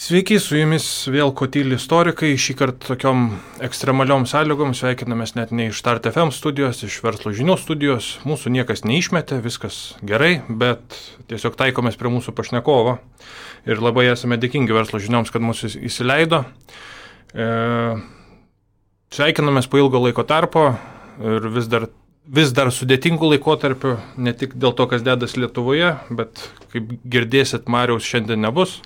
Sveiki, su jumis vėl Kotyli istorikai, šį kartą tokiom ekstremaliom sąlygom sveikinamės net ne iš Start FM studijos, iš Verslo žinių studijos, mūsų niekas neišmetė, viskas gerai, bet tiesiog taikomės prie mūsų pašnekovo ir labai esame dėkingi Verslo žinioms, kad mūsų įsileido. Sveikinamės po ilgo laiko tarpo ir vis dar sudėtingų laikotarpių, ne tik dėl to, kas dedas Lietuvoje, bet kaip girdėsit, Mariaus šiandien nebus.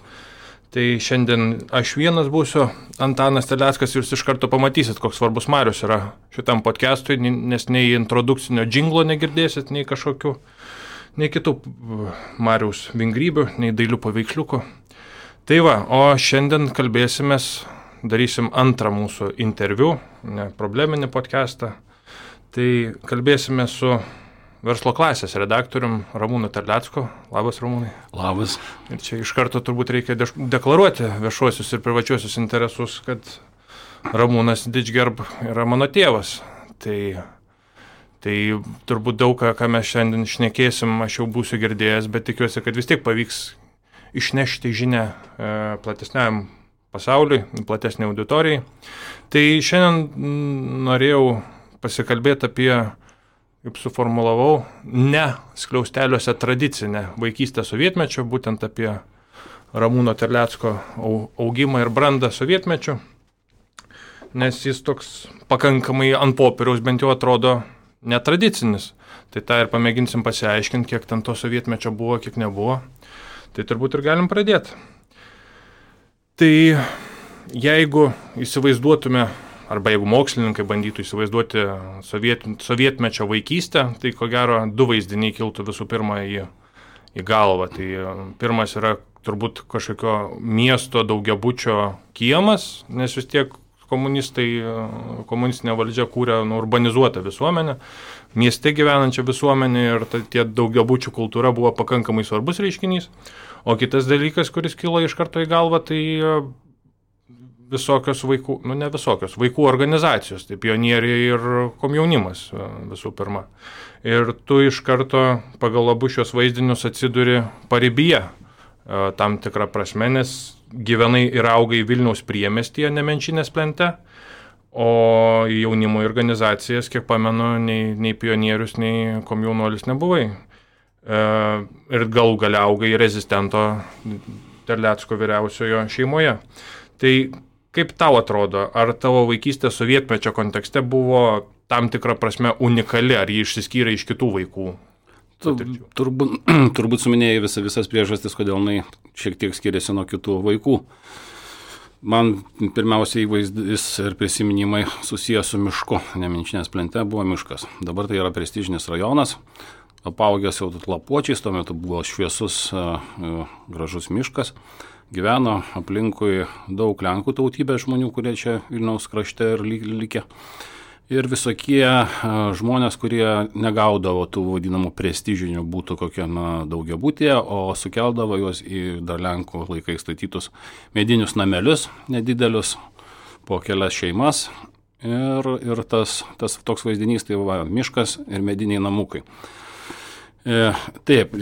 Tai šiandien aš vienas būsiu, Antanas Terleckas, ir jūs iš karto pamatysit, koks svarbus Marius yra šitam podcastui, nes nei introdukcinio džinglo negirdėsit, nei kažkokių, nei kitų Mariaus vingrybių, nei dailių paveiksliukų. Tai va, o šiandien kalbėsimės, darysim antrą mūsų interviu, ne probleminį podcastą. Tai kalbėsime su Verslo klasės redaktorium Ramūnu Terlecku. Labas, Ramūnai. Labas. Ir čia iš karto turbūt reikia deklaruoti viešuosius ir privačiuosius interesus, kad Ramūnas Didžgerb yra mano tėvas. Tai turbūt daug ką mes šiandien šnekėsim, aš jau būsiu girdėjęs, bet tikiuosi, kad vis tiek pavyks išnešti žinią platesniam pasauliui, platesnė auditorijai. Tai šiandien norėjau pasikalbėti apie, kaip suformulavau, ne skliausteliuose tradicinę vaikystę sovietmečio, būtent apie Ramūno Terlecko augimą ir brandą sovietmečiu, nes jis toks pakankamai ant popieriaus bent jau atrodo netradicinis. Tai tą ir pamėginsim pasiaiškinti, kiek ten to sovietmečio buvo, kiek nebuvo. Tai turbūt ir galim pradėti. Tai jeigu įsivaizduotume, arba jeigu mokslininkai bandytų įsivaizduoti sovietmečio vaikystę, tai ko gero du vaizdiniai kiltų visų pirma į galvą. Tai pirmas yra turbūt kažkokio miesto daugiabučio kiemas, nes vis tiek komunistinė valdžia kūrė urbanizuotą visuomenę, mieste gyvenančią visuomenę ir tie daugiabučių kultūra buvo pakankamai svarbus reiškinys. O kitas dalykas, kuris kilo iš karto į galvą, tai visokios vaikų organizacijos, tai pionieriai ir komjaunimas visų pirma. Ir tu iš karto pagal abu šios vaizdinius atsiduri paribyje tam tikrą prasme, nes gyvenai ir augai Vilniaus priemiestyje, Nemenčinės plente, o į jaunimo organizacijas, kiek pamenu, nei pionierius, nei komjaunuolis nebuvai. Ir galų gale augai rezistento Terlecko vyriausiojo šeimoje. Tai kaip tau atrodo, ar tavo vaikystė sovietmečio kontekste buvo tam tikrą prasme unikali, ar jį išsiskyrė iš kitų vaikų? Turbūt suminėjai visas priežastis, kodėl jinai šiek tiek skiriasi nuo kitų vaikų. Man pirmiausia įvaizdis ir prisiminimai susijęs su mišku. Nemenčinės plente buvo miškas. Dabar tai yra prestižinis rajonas, apaugęs jau lapuočiais, tuo metu buvo šviesus, gražus miškas. Gyveno aplinkui daug Lenkų tautybės žmonių, kurie čia Vilniaus krašte ir likę. Ir visokie žmonės, kurie negaudavo tų vadinamų prestižinių būtų kokie daugiabutyje, o sukeldavo juos į dar Lenkų laikais statytus medinius namelius, nedidelius, po kelias šeimas. Ir tas toks vaizdinys, tai va, miškas ir mediniai namukai. Taip,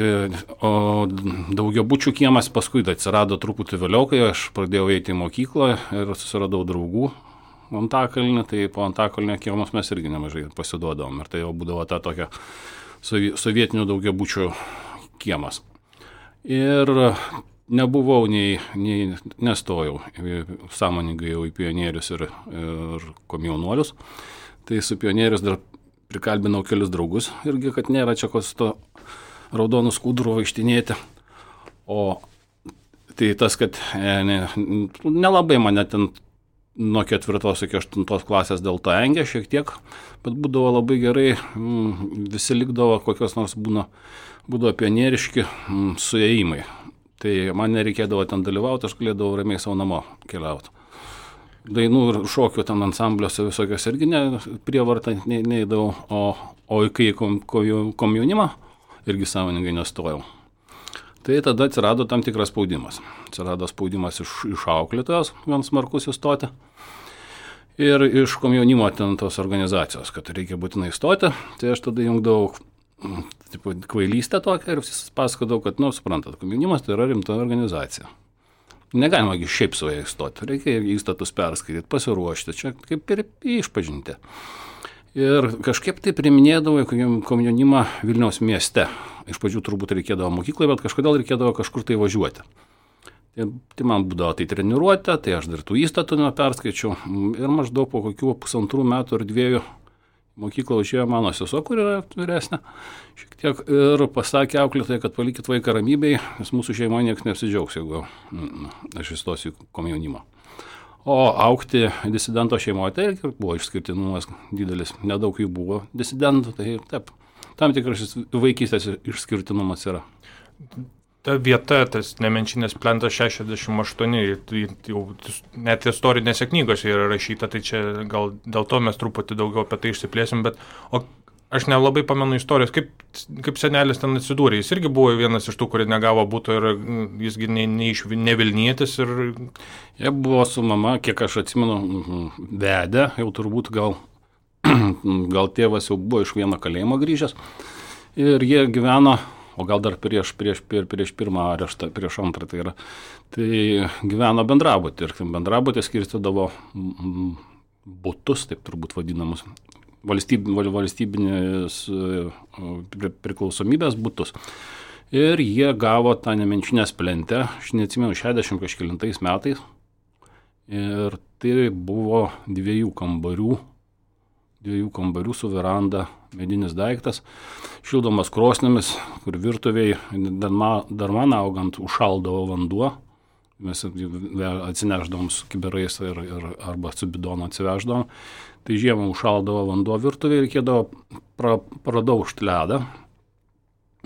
o daugiabučių kiemas paskui atsirado truputį vėliau, kai aš pradėjau eiti į mokyklą ir susiradau draugų Antakalnį, tai po Antakalnio kiemus mes irgi nemažai pasiduodavom ir tai jau būdavo ta tokia sovietinių daugiabučių kiemas. Ir nebuvau nestojau sąmoningai jau į pionierius ir komjaunuolius, tai su pionierius dar prikalbinau kelius draugus irgi, kad nėra čia kos to raudonų skudurų vaikštinėti. O tai tas, kad nelabai mane ten nuo 4 iki 8 klasės dėl to engė šiek tiek, bet būdavo labai gerai, visi likdavo kokios nors būdavo pionieriški suėjimai. Tai man nereikėdavo ten dalyvauti, aš galėdavau ramiai savo namo keliauti. Dainų ir šokių ten ansambliuose visokios irgi prievartą neįdavau, o kai komjaunimą irgi sąmoningai nestojau. Tai tada atsirado tam tikras spaudimas. Atsirado spaudimas iš auklėtojos, gan smarkus įstoti. Ir iš komjaunimo ten tos organizacijos, kad reikia būtinai įstoti. Tai aš tada jungdavau kvailystę tokią ir pasakodavau, kad, suprantat, komjaunimas tai yra rimta organizacija. Negalima šiaip su jais įstoti, reikia įstatus perskaityti, pasiruošti, čia kaip ir išpažinti. Ir kažkaip tai priminėdavo komjaunimą Vilniaus mieste. Iš pradžių turbūt reikėdavo mokykloje, bet kažkodėl reikėdavo kažkur tai važiuoti. Tai man būdavo tai treniruotė, tai aš dar tų įstatų neperskaičiau. Ir maždaug po kokių 1,5 metų ar 2 mokyklą užėjo mano sesuo, kur yra vyresnė, šiek tiek, ir pasakė auklėtojai, kad palikit vaiką ramybėj, nes mūsų šeimoje niekas neapsidžiaugs, jeigu aš įstosiu į komjaunimą. O augti disidento šeimoje, tai buvo išskirtinumas didelis, nedaug jų buvo disidentų, tai taip, tam tikras vaikystės išskirtinumas yra. Ta vieta, tas Nemenčinės plentas 68, jau net istorinėse knygose yra rašyta, tai čia gal dėl to mes truputį daugiau apie tai išsiplėsim, bet aš nelabai pamenu istorijos, kaip senelis ten atsidūrė. Jis irgi buvo vienas iš tų, kurie negavo buto ir jisgi ne Vilnietis. Jie buvo su mama, kiek aš atsimenu, vedę, jau turbūt gal tėvas jau buvo iš vieno kalėjimo grįžęs ir jie gyveno, o gal dar prieš pirmą areštą, prieš antrą tai yra, tai gyveno bendrabutį ir bendrabutį skirstydavo butus, taip turbūt vadinamus, valstybinės priklausomybės butus. Ir jie gavo tą Nemenčinės plentę, aš neatsimenu, 60 kažkelintais metais. Ir tai buvo 2 kambarių su veranda, medinis daiktas, šildomas krosnėmis, kur virtuviai dar man augant užšaldavo vanduo. Mes atsineždavom su kiberais arba su bidonu atsiveždavom. Tai žiemą užšaldavo vanduo virtuviai, reikėdavo pradaužti ledą.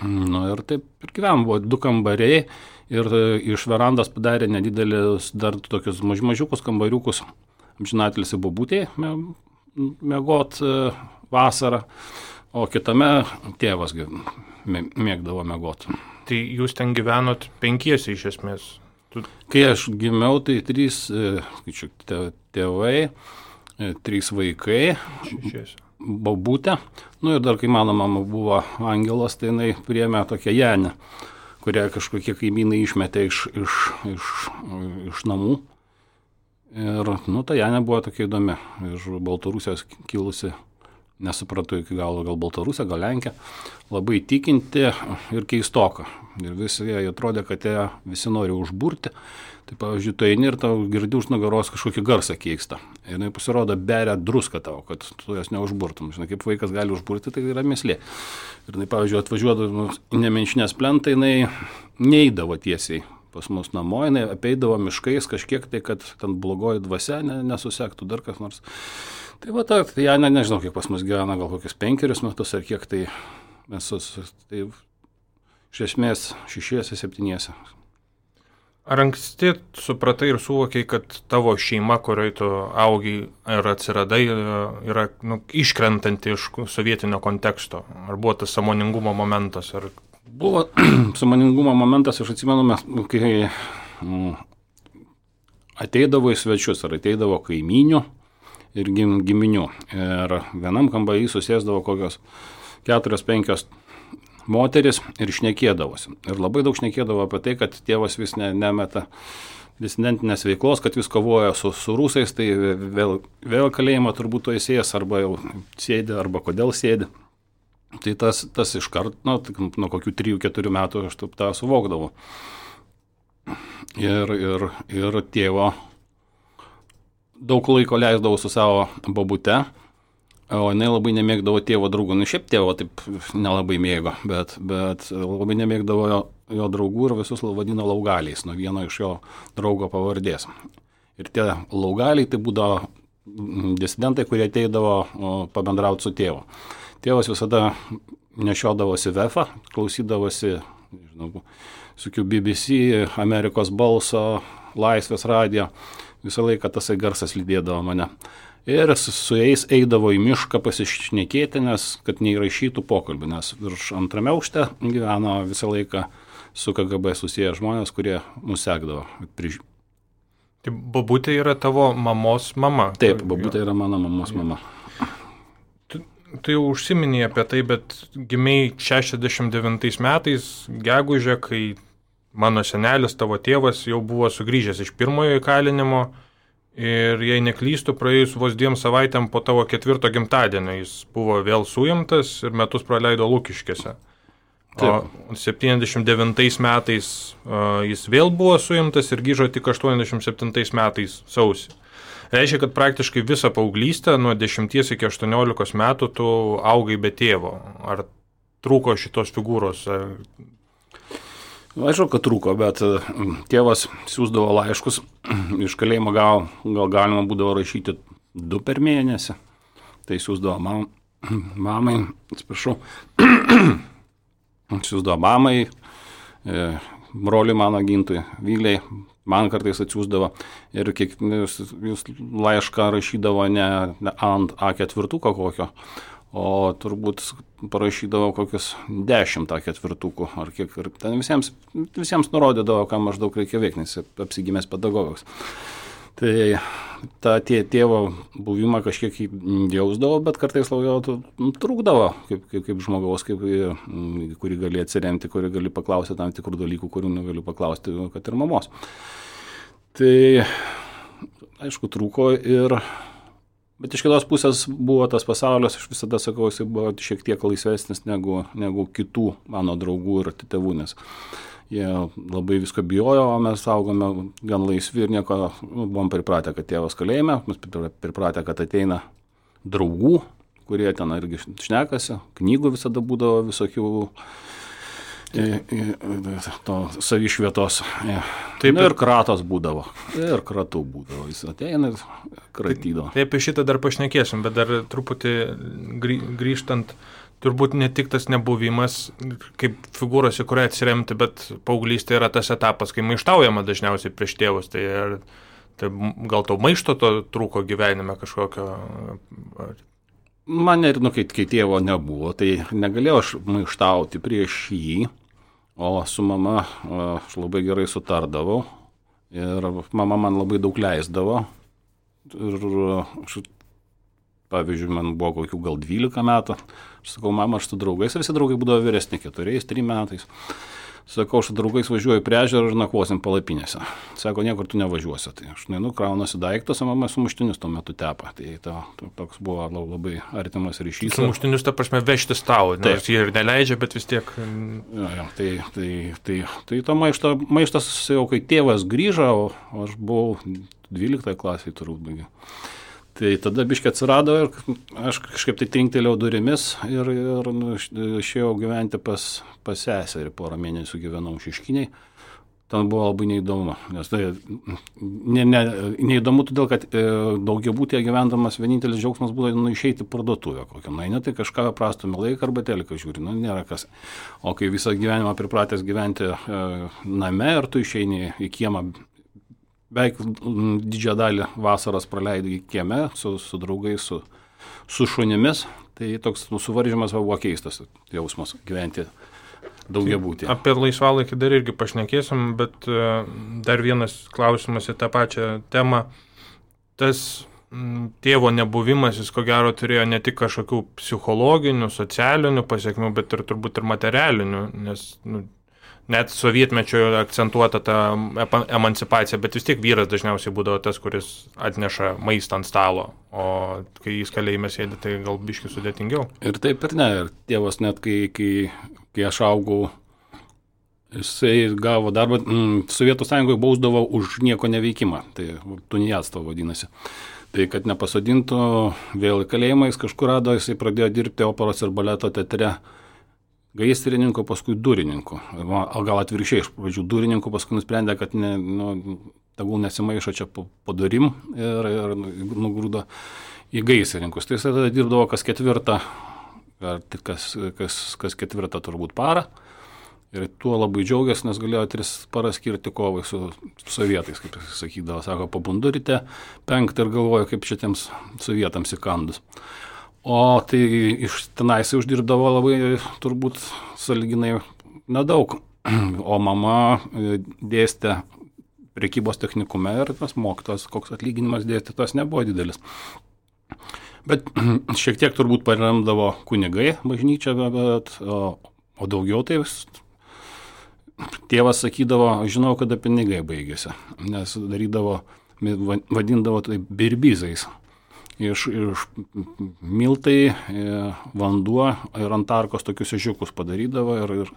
Ir taip ir gyvenam, buvo 2 kambariai ir iš verandos padarė nedidelis, dar tokius mažiukus kambariukus, amžinatelis į bobutėje miegot vasarą, o kitame tėvas mėgdavo miegot. Tai jūs ten gyvenot 5 iš esmės? Kai aš gimiau, tai 3 tėvai, 3 vaikai, bobutė. Ir dar kai mano mama buvo angelas, tai jinai priėmė tokią Janę, kurią kažkokie kaimynai išmetė iš namų. Ir ta Janė buvo tokia įdomi, iš Baltarusijos kilusi, nesupratau iki galo, gal Baltarusija, gal Lenkija, labai tikinti ir keistoka. Ir visi jie atrodė, kad jie visi nori užburti. Tai pavyzdžiui, tu eini ir tau girdi už nugaros kažkokį garsą keistą. Ir jinai pasirodo beria druską tau, kad tu jos neužburtum. Žinai, kaip vaikas gali užburti, tai yra mįslė. Ir jinai, pavyzdžiui, atvažiuodavo į Nemenčinės plentą, jinai neidavo tiesiai pas mus namo, jinai apeidavo miškais kažkiek tai, kad ten blogoji dvasia nesusektų dar kas nors. Tai va, tai Janė, nežinau, kiek pas mus gyvena, gal kokius 5 metus ar kiek tai mes tai iš esmės 6-7. Ar anksti supratai ir suvokiai, kad tavo šeima, kurioje tu augai ir atsiradai, yra iškrentanti iš sovietinio konteksto? Ar buvo tas sąmoningumo momentas? Buvo sąmoningumo momentas, aš atsimenu, kai ateidavo į svečius, ar ateidavo kaimynių ir giminių. Ir vienam kambarį susėsdavo kokios 4-5 moteris ir šnekėdavosi. Ir labai daug šnekėdavo apie tai, kad tėvas vis nemeta disidentinės veiklos, kad vis kovoja su rusais, tai vėl kalėjimą turbūt to įsėjęs, arba jau sėdi, arba kodėl sėdi. Tai tas iškart, nuo kokių 3-4 metų aš tą suvokdavau. Ir tėvo daug laiko leisdavau su savo babute, o jinai labai nemėgdavo tėvo draugų. Šiaip tėvo taip nelabai mėgo, bet labai nemėgdavo jo draugų ir visus vadino laugaliais, nuo vieno iš jo draugo pavardės. Ir tie laugaliai tai būdavo disidentai, kurie ateidavo pabendrauti su tėvu. Tėvas visada nešiodavosi VF, klausydavosi, su BBC, Amerikos balso, Laisvės radijo, visą laiką tasai garsas lydėdavo mane. Ir su jais eidavo į mišką pasišnekėti, nes kad neįrašytų pokalbį, nes virš 2 aukšte gyveno visą laiką su KGB susiję žmonės, kurie mus sekdavo. Tai babutė yra tavo mamos mama? Taip, babutė yra mano mamos mama. Tu jau užsiminėjai apie tai, bet gimiai 69 metais, gegužę, kai mano senelis, tavo tėvas jau buvo sugrįžęs iš pirmojo įkalinimo ir jei neklystų, praėjus vos 2 savaitėm po tavo 4 gimtadienio jis buvo vėl suimtas ir metus praleido Lukiškėse. O 79 metais jis vėl buvo suimtas ir grįžo tik 87 metais sausį. Reiškia, kad praktiškai visą paauglystę nuo 10 iki 18 metų tu augai be tėvo. Ar trūko šitos figūros? Aišku, kad trūko, bet tėvas siūsdavo laiškus. Iš kalėjimo gal galima būdavo rašyti 2 per mėnesį. Tai siūsdavo mamai, atsiprašau, siūsdavo mamai, broliui mano Gintui, Vyliai. Man kartais atsiųsdavo ir jūs laišką rašydavo ne ant A4 kokio, o turbūt parašydavo kokius 10 A4 ar kiek. Ir ten visiems nurodydavo, ką maždaug reikia veikti, nes apsigimęs pedagogas. Tai tą tėvo buvimą kažkiek jausdavo, bet kartais trūkdavo kaip žmogaus, kurį gali atsiremti, kurį gali paklausti tam tikrų dalykų, kurių negaliu paklausti, kad ir mamos. Tai, aišku, trūko bet iš kitos pusės buvo tas pasaulis, aš visada sakau, jis buvo šiek tiek laisvesnis negu kitų mano draugų ir tėvų, nes jie labai visko bijojo, o mes augome gan laisvi ir nieko, buvom pripratę, kad tėvas kalėjime, mes pripratę, kad ateina draugų, kurie ten irgi šnekasi, knygų visada būdavo visokių to savišvietos. Taip, ir kratos būdavo, ir kratų būdavo, jis ateina ir kratydavo. Taip, apie šitą dar pašnekėsim, bet dar truputį grįžtant, turbūt ne tik tas nebuvimas kaip figūros, į kurią atsiremti, bet paauglystė yra tas etapas, kai maištaujama dažniausiai prieš tėvus. Tai gal to maišto to trūko gyvenime kažkokio? Man ir, kai tėvo nebuvo, tai negalėjau aš maištauti prieš jį, o su mama aš labai gerai sutardavau ir mama man labai daug leisdavo. Ir pavyzdžiui, man buvo kokių gal 12 metų. Aš sakau, mama, aš su draugais, ir visi draugai būdavo vyresni 4-3 metais. Sakau, aš su draugais važiuoju prie ežero ir nakvosim palapinėse. Sako, niekur tu nevažiuosi. Tai aš kraunuosi daiktus, o mama sumuštinius tuo metu tepa. Tai toks buvo labai artimas ryšys. Sumuštinius, ta prasme, vežtis tau, nes jie ir neleidžia, bet vis tiek. Tai to maištas jau kai tėvas grįžo, o aš buvau 12 klasėje turbūt baigiau. Tai tada biškį atsirado ir aš kažkaip tai trinktelėjau durimis ir išėjau gyventi pas seserį, 4 mėnesių gyvenau Šeškinėj. Ten buvo labai neįdomu, nes tai neįdomu todėl, kad daugiabūtyje gyvendamas vienintelis džiaugsmas būdavo išeiti į parduotuvę kokią. Na, tai kažką prastumė laiką arba teliką žiūri, nėra kas. O kai visą gyvenimą pripratęs gyventi name ir tu išeini į kiemą, beveik didžiąją dalį vasaros praleidai kieme su draugais, su šunimis, tai toks suvaržymas buvo keistas jausmas gyventi daugiabūtyje. Apie laisvalaikį dar irgi pašnekėsim, bet dar vienas klausimas į tą pačią temą. Tas tėvo nebuvimas, jis ko gero turėjo ne tik kažkokių psichologinių, socialinių pasiekmių, bet ir turbūt ir materialinių, nes net sovietmečio akcentuota ta emancipacija, bet vis tiek vyras dažniausiai būdavo tas, kuris atneša maistą ant stalo, o kai jis kalėjime sėdi, tai gal biškį sudėtingiau. Ir taip ir ne, ir tėvas net kai aš augau, jisai gavo darbą, Sovietų Sąjungoje bausdavo už nieko neveikimą, tai tuniatstvo vadinasi. Tai kad nepasodintų vėl į kalėjimą, jis kažkur rado, jisai pradėjo dirbti operos ir baleto teatre, gaisrininku, paskui durininku. O gal atvirkščiai, iš pradžių durininku, paskui nusprendė, kad tegul nesimaišo čia po durim ir nugrūdo į gaisrininkus. Tai jis tada dirbdavo kas 4, ar kas 4 turbūt parą. Ir tuo labai džiaugiasi, nes galėjo 3 paras skirti kovai su sovietais, kaip jis sakydavo. Sako, pabundu ryte 5 ir galvoju, kaip šitiems sovietams įkandus. O tai iš tenais uždirbdavo labai turbūt sąlyginai nedaug. O mama dėstė prekybos technikume ir tas mokytojas, koks atlyginimas dėstytojas nebuvo didelis. Bet šiek tiek turbūt paremdavo kunigai bažnyčią, o daugiau tai tėvas sakydavo, žinau, kada pinigai baigėsi, nes vadindavo tai birbizais. Iš miltai, vanduo ir ant tarkos tokius ežiukus padarydavo ir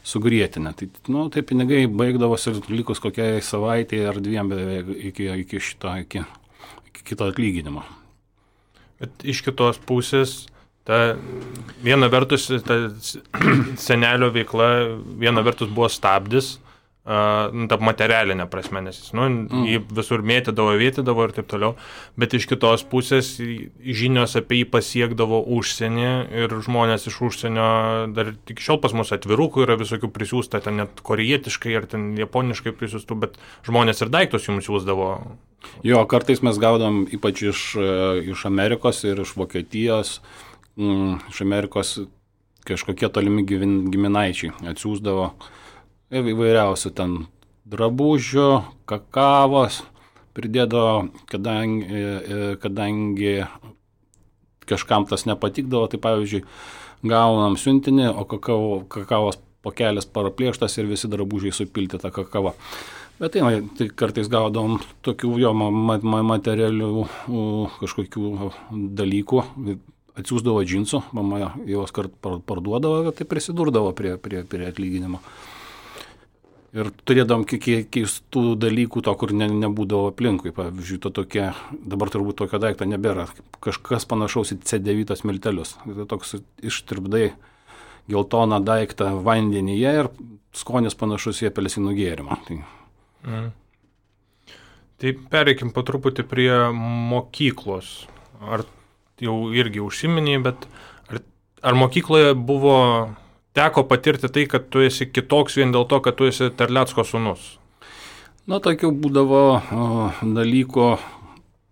sugrietinę. Tai pinigai baigdavosi ir likus kokiai savaitėje ar dviem iki kito atlyginimo. Bet iš kitos pusės, viena vertus, ta senelio veikla, viena vertus buvo stabdis, ta materialinė prasme, nes jį visur mėtydavo ir taip toliau, bet iš kitos pusės žinios apie jį pasiekdavo užsienį ir žmonės iš užsienio, dar tik šiol pas mus atvirukų yra visokių prisiųsta, ten net korėjietiškai ar ten japoniškai prisiųstų, bet žmonės ir daiktus jums siūsdavo. Jo, kartais mes gaudom ypač iš Amerikos ir iš Vokietijos, iš Amerikos kažkokie tolimi giminaičiai atsiųsdavo įvairiausių ten drabužių, kakavos, pridėdavo, kadangi kažkam tas nepatikdavo, tai pavyzdžiui, gaunam siuntinį, o kakavos pakelis paraplėštas ir visi drabužiai supilti tą kakavą. Bet tai kartais gaudavom tokių jo materialių kažkokių dalykų, atsiųsdavo džinsų, mama juos kart parduodavo, tai prisidurdavo prie atlyginimo. Ir turėdom keistų dalykų, to, kur nebūdavo aplinkui. Pavyzdžiui, dabar turbūt tokio daikto nebėra. Kažkas panašaus į C9 miltelius. Tai toks ištirpdai geltoną daiktą vandenyje ir skonis panašus į apelsinų gėrimą. Tai pereikim po truputį prie mokyklos. Ar jau irgi užsiminiai, bet ar mokykloje teko patirti tai, kad tu esi kitoks vien dėl to, kad tu esi Terlecko sūnus? Tokių būdavo dalykų,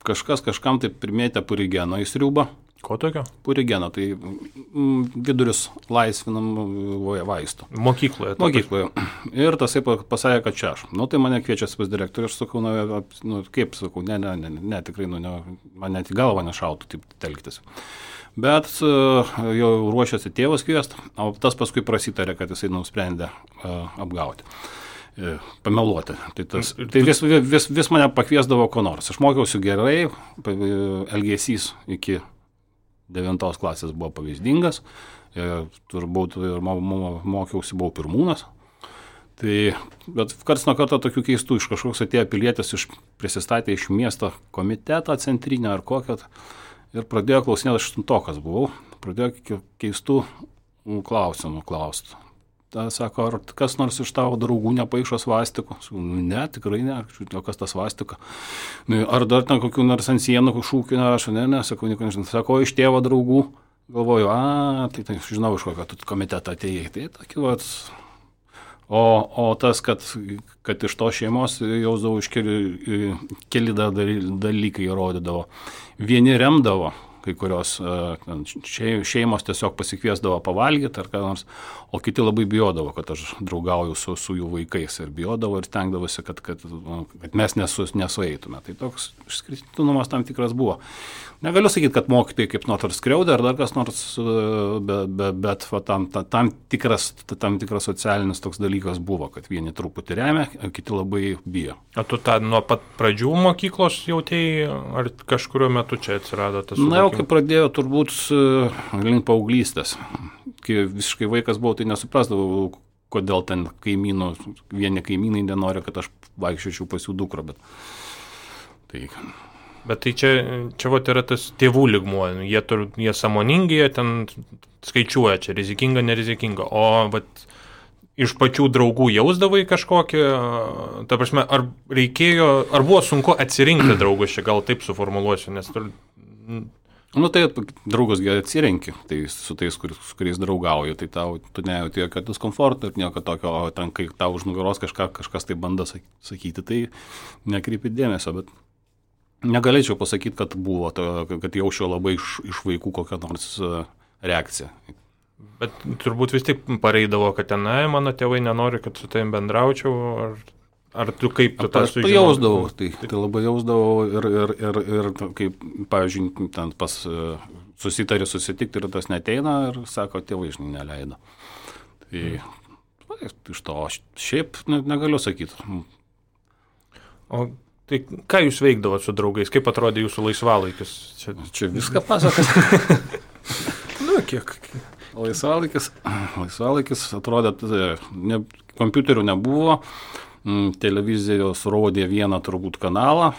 kažkam tai primėtė purigeno į sriubą. Ko tokio? Purigeno, tai vidurius laisvinam vaistų. Mokykloje? Mokykloje. Ir tasai pasakė, kad čia aš. Tai mane kviečia pas direktorių ir sakau, kaip sakau, ne, tikrai, man net į galvą nešautų taip telktis. Bet jau ruošiasi tėvas kviest, o tas paskui prasitarė, kad jisai nusprendė apgauti, pameluoti. Tai vis mane pakviesdavo ko nors. Aš mokiausi gerai, elgesys iki 9 klasės buvo pavyzdingas, turbūt ir mokiausi, buvau pirmūnas. Bet karts nuo karto tokių keistų, iš kažkoks atėjo pilietis, prisistatė iš miesto komiteto centrinio ar kokio, ir pradėjo klausinėti, aš 8-okas buvau, pradėjo keistų klausimų klausti. Ta sako, ar kas nors iš tavo draugų nepaišo svastikų? Ne, tikrai ne, o kas ta svastika? Ar dar ten kokių nors ant sienų šūkių nerašo? Ne, sakau, nieko nežinau. Sako, iš tėvo draugų? Galvoju, tai žinau, iš kokio komitetą atėjai. Tai tokiu vat. O tas, kad iš to šeimos jausdavau iš keli dalykai rodydavo. Vieni remdavo, kai kurios šeimos tiesiog pasikviesdavo pavalgyti ar ką nors, o kiti labai bijodavo, kad aš draugauju su jų vaikais ir bijodavo ir stengdavosi, kad mes nesueitume. Tai toks išskirtinumas tam tikras buvo. Negaliu sakyti, kad mokytojai kaip nors skriaudė ar dar kas nors, bet tam tikras socialinis toks dalykas buvo, kad vieni truputį remia, kiti labai bijo. O tu nuo pat pradžių mokyklos jautėjai, ar kažkurio metu čia atsirado tas suvokimas? Na, jau kai pradėjau turbūt link paauglystės. Kai visiškai vaikas buvau, tai nesuprasdavau, kodėl ten vieni kaimynai nenori, kad aš vaikščiočiau pas jų dukrą, Bet tai čia vat yra tas tėvų lygmuo, jie sąmoningi, jie ten skaičiuoja, čia rizikinga, nerizikinga, o vat iš pačių draugų jausdavai kažkokį, ta prasme, ar buvo sunku atsirinkti draugus, čia gal taip suformuluosiu, nes tai draugus atsirenki, tai su tais, su kuriais draugauju, tai tu nejauti jokio diskomforto ir nieko tokio, o ten, kai tau už nugaros kažkas tai bando sakyti, tai nekreipi dėmesio, bet negalėčiau pasakyti, kad buvo, kad jaučiau labai iš vaikų kokią nors reakciją. Bet turbūt vis tik pareidavo, kad mano tėvai nenori, kad su tavim bendraučiau, ar tu kaip tu tą sužinojai? Jausdavau, tai labai jausdavau ir kaip, pavyzdžiui, ten susitikti ir tas neteina ir sako, tėvai neleido. Tai iš to šiaip negaliu sakyti. O tai ką jūs veikdavot su draugais? Kaip atrodė jūsų laisvalaikis? Čia viską pasakas. Kiek? Laisvalaikis atrodė, kompiuterių nebuvo, televizijos rodė vieną turbūt kanalą,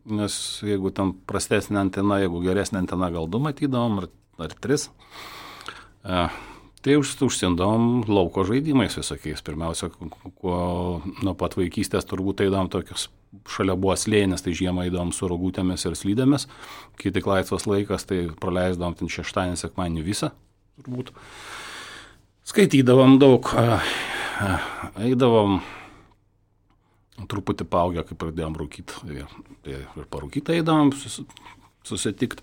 nes jeigu ten prastesnė antena, jeigu geresnė antena, gal 2 matydavom, ar 3. Tai užsiendavom lauko žaidimais visokiais. Pirmiausia, nuo pat vaikystės turbūt eidavom tokius, šalia buvo slėnis, tai žiemą eidavom su rogutėmis ir slydėmis, kai tik laisvas laikas, tai praleisdavom ten šeštadienį, sekmadienį visą, turbūt. Skaitydavom daug, eidavom truputį paaugę, kai pradėjom rūkyti, ir parūkyti eidavom susitikti.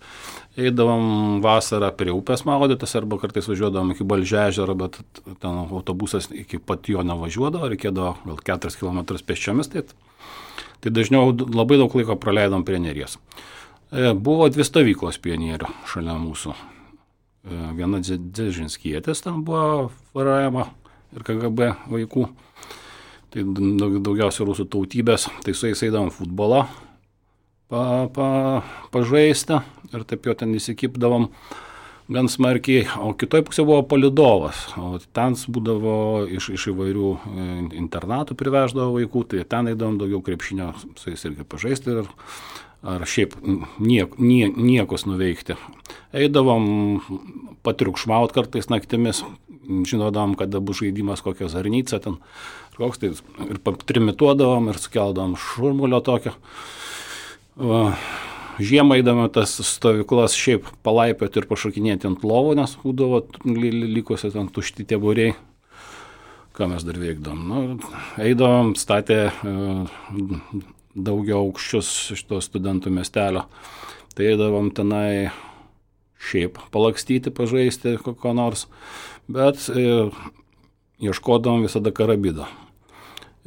Eidavom vasarą prie upės maudytis, arba kartais važiuodavom iki Balžežero, bet ten autobusas iki pat jo nevažiuodavo, reikėdavo gal 4 km pėsčiomis, tai dažniau labai daug laiko praleidom prie Neries. Buvo 2 stovyklos pionierių šalia mūsų. Viena Dzeržinskietis ten buvo varajama ir KGB vaikų. Tai daugiausia rusų tautybės, tai su jais eidavom futbolą pažaisti ir taip jo ten įsikipdavom gan smarkiai, o kitoj pusė buvo palidovas, o ten būdavo iš įvairių internatų priveždavo vaikų, tai ten eidavom daugiau krepšinio su jais irgi pažaisti ar šiaip niekus nuveikti. Eidavom patriukšmaut kartais naktimis, žinodavom, kada bus žaidimas kokia Zarnica ten, koks tai ir trimituodavom ir sukeldavom šurmulio tokio. Žiemą eidami tas stovyklas šiaip palaipioti ir pašokinėti ant lovų, nes būdavo likusi ten tušti tie būriai. Ką mes dar veikdavom? Eidavom, statė daugiau aukščius iš to studentų miestelio. Tai eidavom tenai šiaip palakstyti, pažaisti ko nors, bet ieškodavom visada karabido.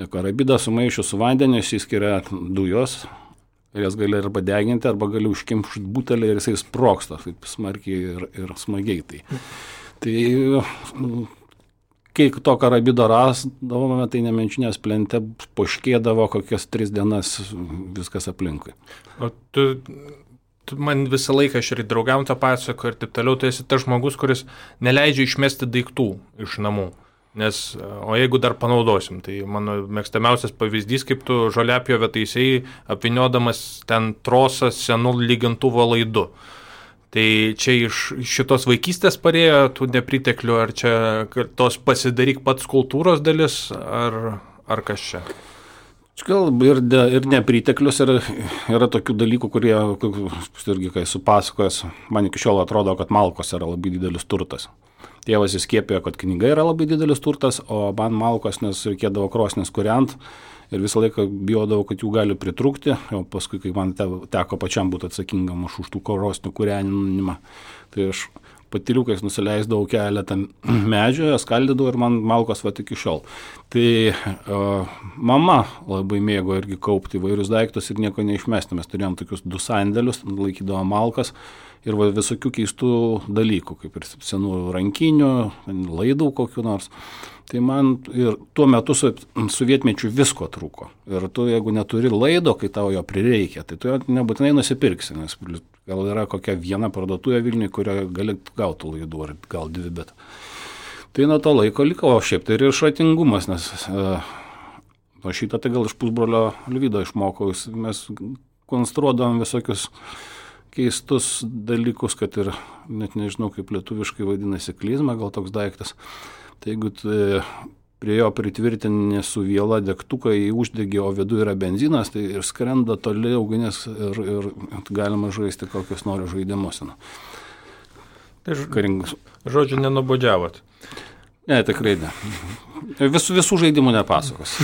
Karabidą sumaišius su vandeniu išsiskiria dujos ir jas gali arba deginti, arba gali užkimšti butelį ir jisai sproksta taip smarkiai ir smagiai. Tai kai to karabido rasdavome, tai nemenčinės plente poškėdavo kokias 3 dienas viskas aplinkui. O tu man visą laiką aš ir draugam tą pasako ir taip toliau, tai esi tas žmogus, kuris neleidžia išmesti daiktų iš namų. O jeigu dar panaudosim, tai mano mėgstamiausias pavyzdys, kaip tu žoliapjovę taisei, apviniodamas ten trosą senų lygintuvo laidu. Tai čia iš šitos vaikystės parėjo tų nepriteklių, ar čia tos pasidaryk pats kultūros dalis, ar kas čia? Gal ir nepriteklius, ir yra tokių dalykų, kurie, irgi kai supasakojęs, man iki šiol atrodo, kad malkos yra labai didelis turtas. Tėvas įskiepėjo, kad knyga yra labai didelis turtas, o man malkos, nes reikėdavo krosnis kūrent ir visą laiką bijodavau, kad jų gali pritrūkti, o paskui, kai man teko pačiam būti atsakingam už tų krosnių kūrenimą, tai aš patyliukais nusileisdavau keletą medžių, skaldydavau ir man malkos va iki šiol. Tai mama labai mėgo irgi kaupti įvairius daiktus ir nieko neišmesti. Mes turėjom tokius 2 sandėlius, laikydavom malkas ir visokių keistų dalykų, kaip ir senų rankinių, laidų kokių nors. Tai man ir tuo metu sovietmečiu visko trūko. Ir tu, jeigu neturi laido, kai tau jo prireikia, tai tu jo nebūtinai nusipirksi, nes gal yra kokia viena parduotuvė Vilniuje, kurioje gali gauti laidų, ar gal 2, bet tai nuo to laiko liko, o šiaip tai ir išratingumas, nes šitą tai gal iš pusbrolio Liudo išmokau, mes konstruodavom visokius keistus dalykus, kad ir net nežinau, kaip lietuviškai vadinasi klizma, gal toks daiktas. Tai jeigu prie jo pritvirtinė su viela degtuką į uždegį, o viduje yra benzinas, tai ir skrenda toli ugnis ir galima žaisti kokius nori žaidimus. Tai žodžiu, nenubodžiavot. Ne, tikrai ne. Visų žaidimų nepasakos.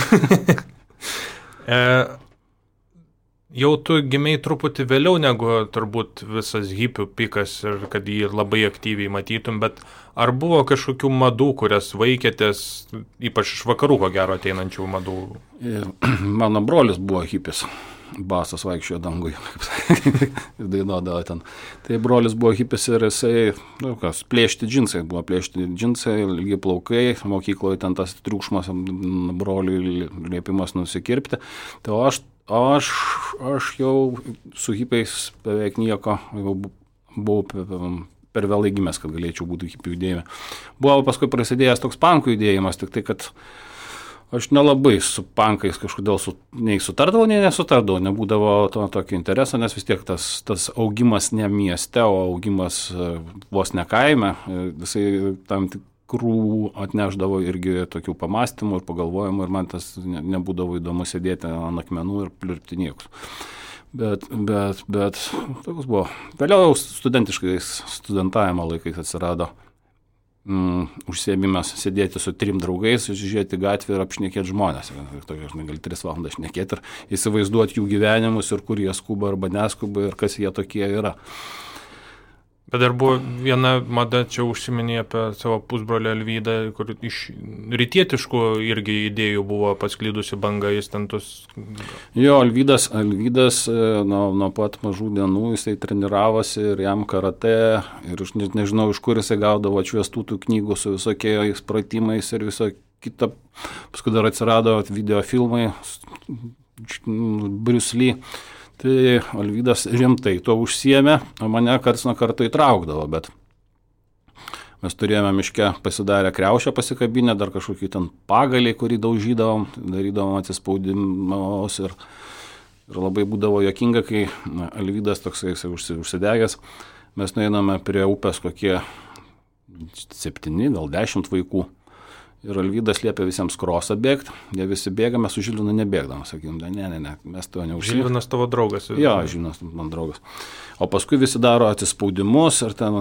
Jau tu gimei truputį vėliau negu turbūt visas hipių pikas ir kad jį labai aktyviai matytum, bet ar buvo kažkokių madų, kurias vaikėtės, ypač iš vakarų ko gero ateinančių madų? Mano brolis buvo hipis. basas vaikščiojo dangui, ir dainuodavo ten. Tai brolis buvo hipis ir jisai, plėšti džinsai, ilgi plaukai, mokykloje ten tas triukšmas, broliui liepimas nusikirpti. Tai aš jau su hipiais beveik nieko, buvau per vėlai gimęs, kad galėčiau būti hipių judėjime. Buvo paskui prasidėjęs toks pankų judėjimas, tik tai, kad aš nelabai su pankais kažkodėl nei sutardavau, nei nesutardavau, nebūdavo tokio intereso, nes vis tiek tas augimas ne mieste, o augimas vos ne kaime, visai tam tikrų atneždavo irgi tokių pamastymų ir pagalvojimų ir man tas nebūdavo įdomu sėdėti ant akmenų ir pliurpti niekus. Bet toks buvo. Vėliau studentavimo laikais atsirado užsiėmimas sėdėti su 3 draugais, žiūrėti gatvę ir apšnekėti žmonės. Ir gali 3 valandas šnekėti ir įsivaizduoti jų gyvenimus ir kur jie skuba arba neskuba ir kas jie tokie yra. Bet dar buvo viena mada, čia užsiminė apie savo pusbrolį Alvydą, kur iš rytietiškų irgi idėjų buvo pasklydusi banga, jis ten tos... Jo, Alvydas nuo pat mažų dienų jisai treniravosi ir jam karate ir aš nežinau, iš kur jisai gaudavo atšviestų tų knygų su visokiais pratimais ir viso kita. Paskui dar atsirado videofilmai, Bruce Lee. Tai Alvydas rimtai to užsiėmė, o mane karts nuo karto įtraukdavo, bet mes turėjome miške pasidarę kriaušę pasikabinę, dar kažkokį ten pagalį, kurį daužydavom, darydavom atsispaudimus ir labai būdavo juokinga, kai Alvydas toksai užsidegęs, mes nueiname prie upės kokie 7, gal 10 vaikų. Ir Alvydas liepė visiems krosą bėgti, jie visi bėga, mes su Žilvinu nebėgdavom, sakym, ne, mes to neužsiimėm. Žilvinas tavo draugas? Jo, Žilvinas man draugas. O paskui visi daro atsispaudimus ir ten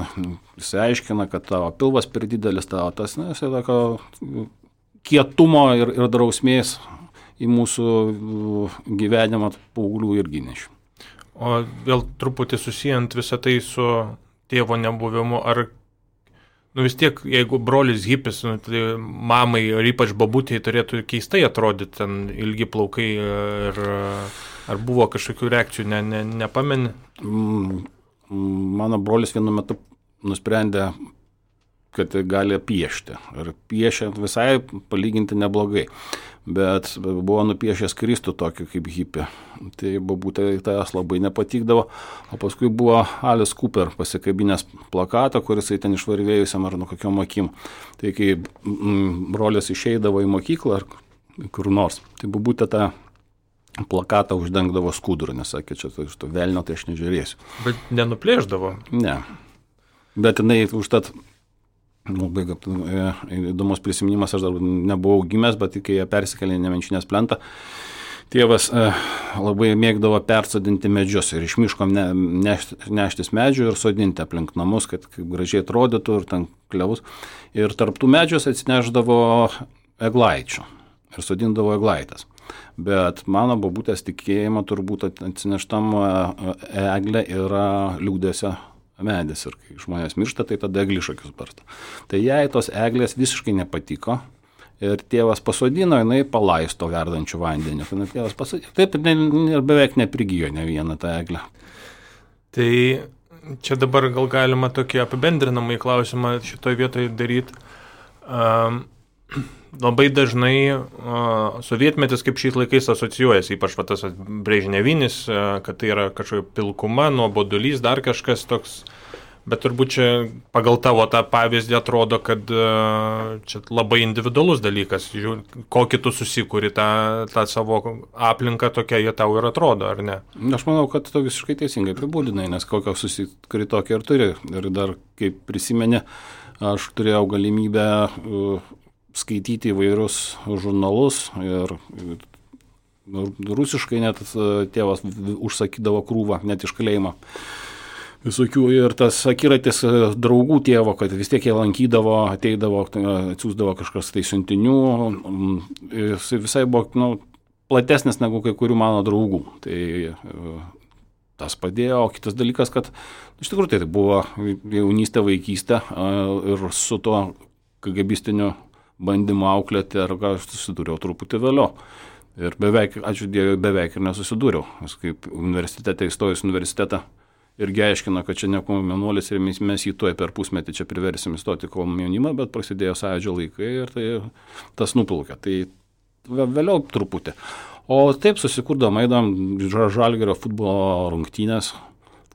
visi aiškina, kad tavo pilvas per didelis, tavo tas, jisai tokio kietumo ir drausmės į mūsų gyvenimą paauglių irgi nešiu. O vėl truputį susijant visą tai su tėvo nebuvimu, ar vis tiek, jeigu brolis hipis, tai mamai ir ypač babutėjai turėtų keistai atrodyti, ten ilgi plaukai ir ar buvo kažkokių reakcijų, nepameni? Mano brolis vienu metu nusprendė, kad gali piešti. Ir piešė visai palyginti neblogai. Bet buvo nupiešęs Kristų tokį kaip hipį. Tai babutė tas labai nepatikdavo. O paskui buvo Alice Cooper pasikabinęs plakatą, kuris ten išvarvėjusiam ar nuo kokiom akim. Tai kai brolis išeidavo į mokyklą ar kur nors, tai babutė tą plakatą uždengdavo skudurą, nes sakė, čia iš to velnio tai aš nežiūrėsiu. Bet nenuplėždavo? Ne. Bet jinai užtat... Labai įdomus prisiminimas, aš dar nebuvau gimęs, bet kai jie persikėlė į Nemenčinės plentą, tėvas labai mėgdavo persodinti medžius ir iš miško neštis medžių ir sodinti aplink namus, kad gražiai atrodytų ir ten klevus. Ir tarptų medžius atsineždavo eglaičių ir sodindavo eglaitas. Bet mano babutės tikėjimo turbūt atsineštam eglė yra liūdėsio medis ir kai žmonės miršta, tai tada eglišakius barsto. Tai jai tos eglės visiškai nepatiko ir tėvas pasodino, jinai palaisto verdančių vandenį. Tėvas pasodino, taip ir beveik neprigijo ne vieną tą eglę. Tai čia dabar gal galima tokį apibendrinamą klausimą šitoje vietoje daryti. Labai dažnai sovietmetis kaip šiais laikais asocijuojasi, ypač tas brežnevinis, kad tai yra kažkokia pilkuma, nuobodulys, dar kažkas toks, bet turbūt čia pagal tavo tą pavyzdį atrodo, kad čia labai individualus dalykas, kokį tu susikuri tą savo aplinką, tokia jie tau ir atrodo, ar ne? Aš manau, kad tu visiškai teisingai apibūdinai, nes kokią susikuri tokia ir turi. Ir dar, kaip prisimeni, aš turėjau galimybę skaityti įvairius žurnalus ir rusiškai net tėvas užsakydavo krūvą, net iš kalėjimo. Visokių ir tas akiratis draugų tėvo, kad vis tiek jie lankydavo, ateidavo, atsiųsdavo kažkas tai siuntinių, jis visai buvo platesnis negu kai kurių mano draugų. Tai tas padėjo, o kitas dalykas, kad iš tikrųjų tai buvo jaunystė, vaikystė ir su tuo KGBistiniu bandymu auklėti, ar ką aš susidūriau truputį vėliau. Ir beveik, ačiū Dievui, beveik ir nesusidūriau. Nes kaip universitete įstojus universitetą irgi aiškino, kad čia ne komjaunuolis ir mes jį tuoj per pusmetį čia priversim įstoti komjaunimą, bet prasidėjo Sąjūdžio laikai ir tai tas nuplaukė. Tai vėliau truputį. O taip susikurdom, eidom Žalgirio futbolo rungtynės.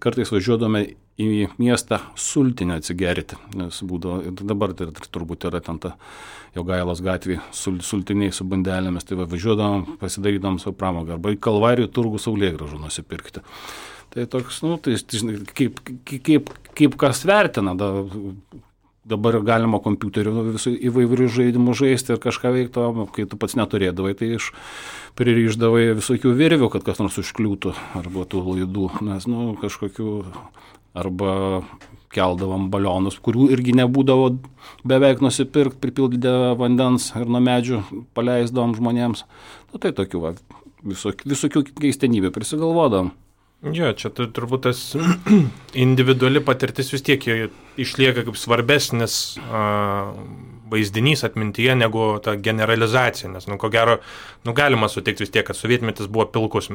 Kartais važiuodome į miestą sultinę atsigerti, nes būdavo, dabar tai turbūt yra ten ta Jogailos gatvė sultiniai su bandelėmis, tai važiuodom, pasidarydom savo pramogą, arba į Kalvarijų turgų saulėgrąžų nusipirkti. Tai toks, tai kaip kas vertina, dabar galima kompiuteriu visų įvairių žaidimų žaisti ir kažką veikti, kai tu pats neturėdavai, tai pririšdavai visokių virvių, kad kas nors užkliūtų, arba tų laidų, nes kažkokių, arba keldavom balionus, kurių irgi nebūdavo beveik nusipirkti, pripildydė vandens ir nuo medžių paleisdavom žmonėms. Tai tokių visokių keistenybių prisigalvodavom. Jo, čia turbūt tas individuali patirtis vis tiek išlieka kaip svarbesnis vaizdinys atmintyje negu ta generalizacija, nes, ko gero, galima sutikti vis tiek, kad sovietmetis buvo pilkas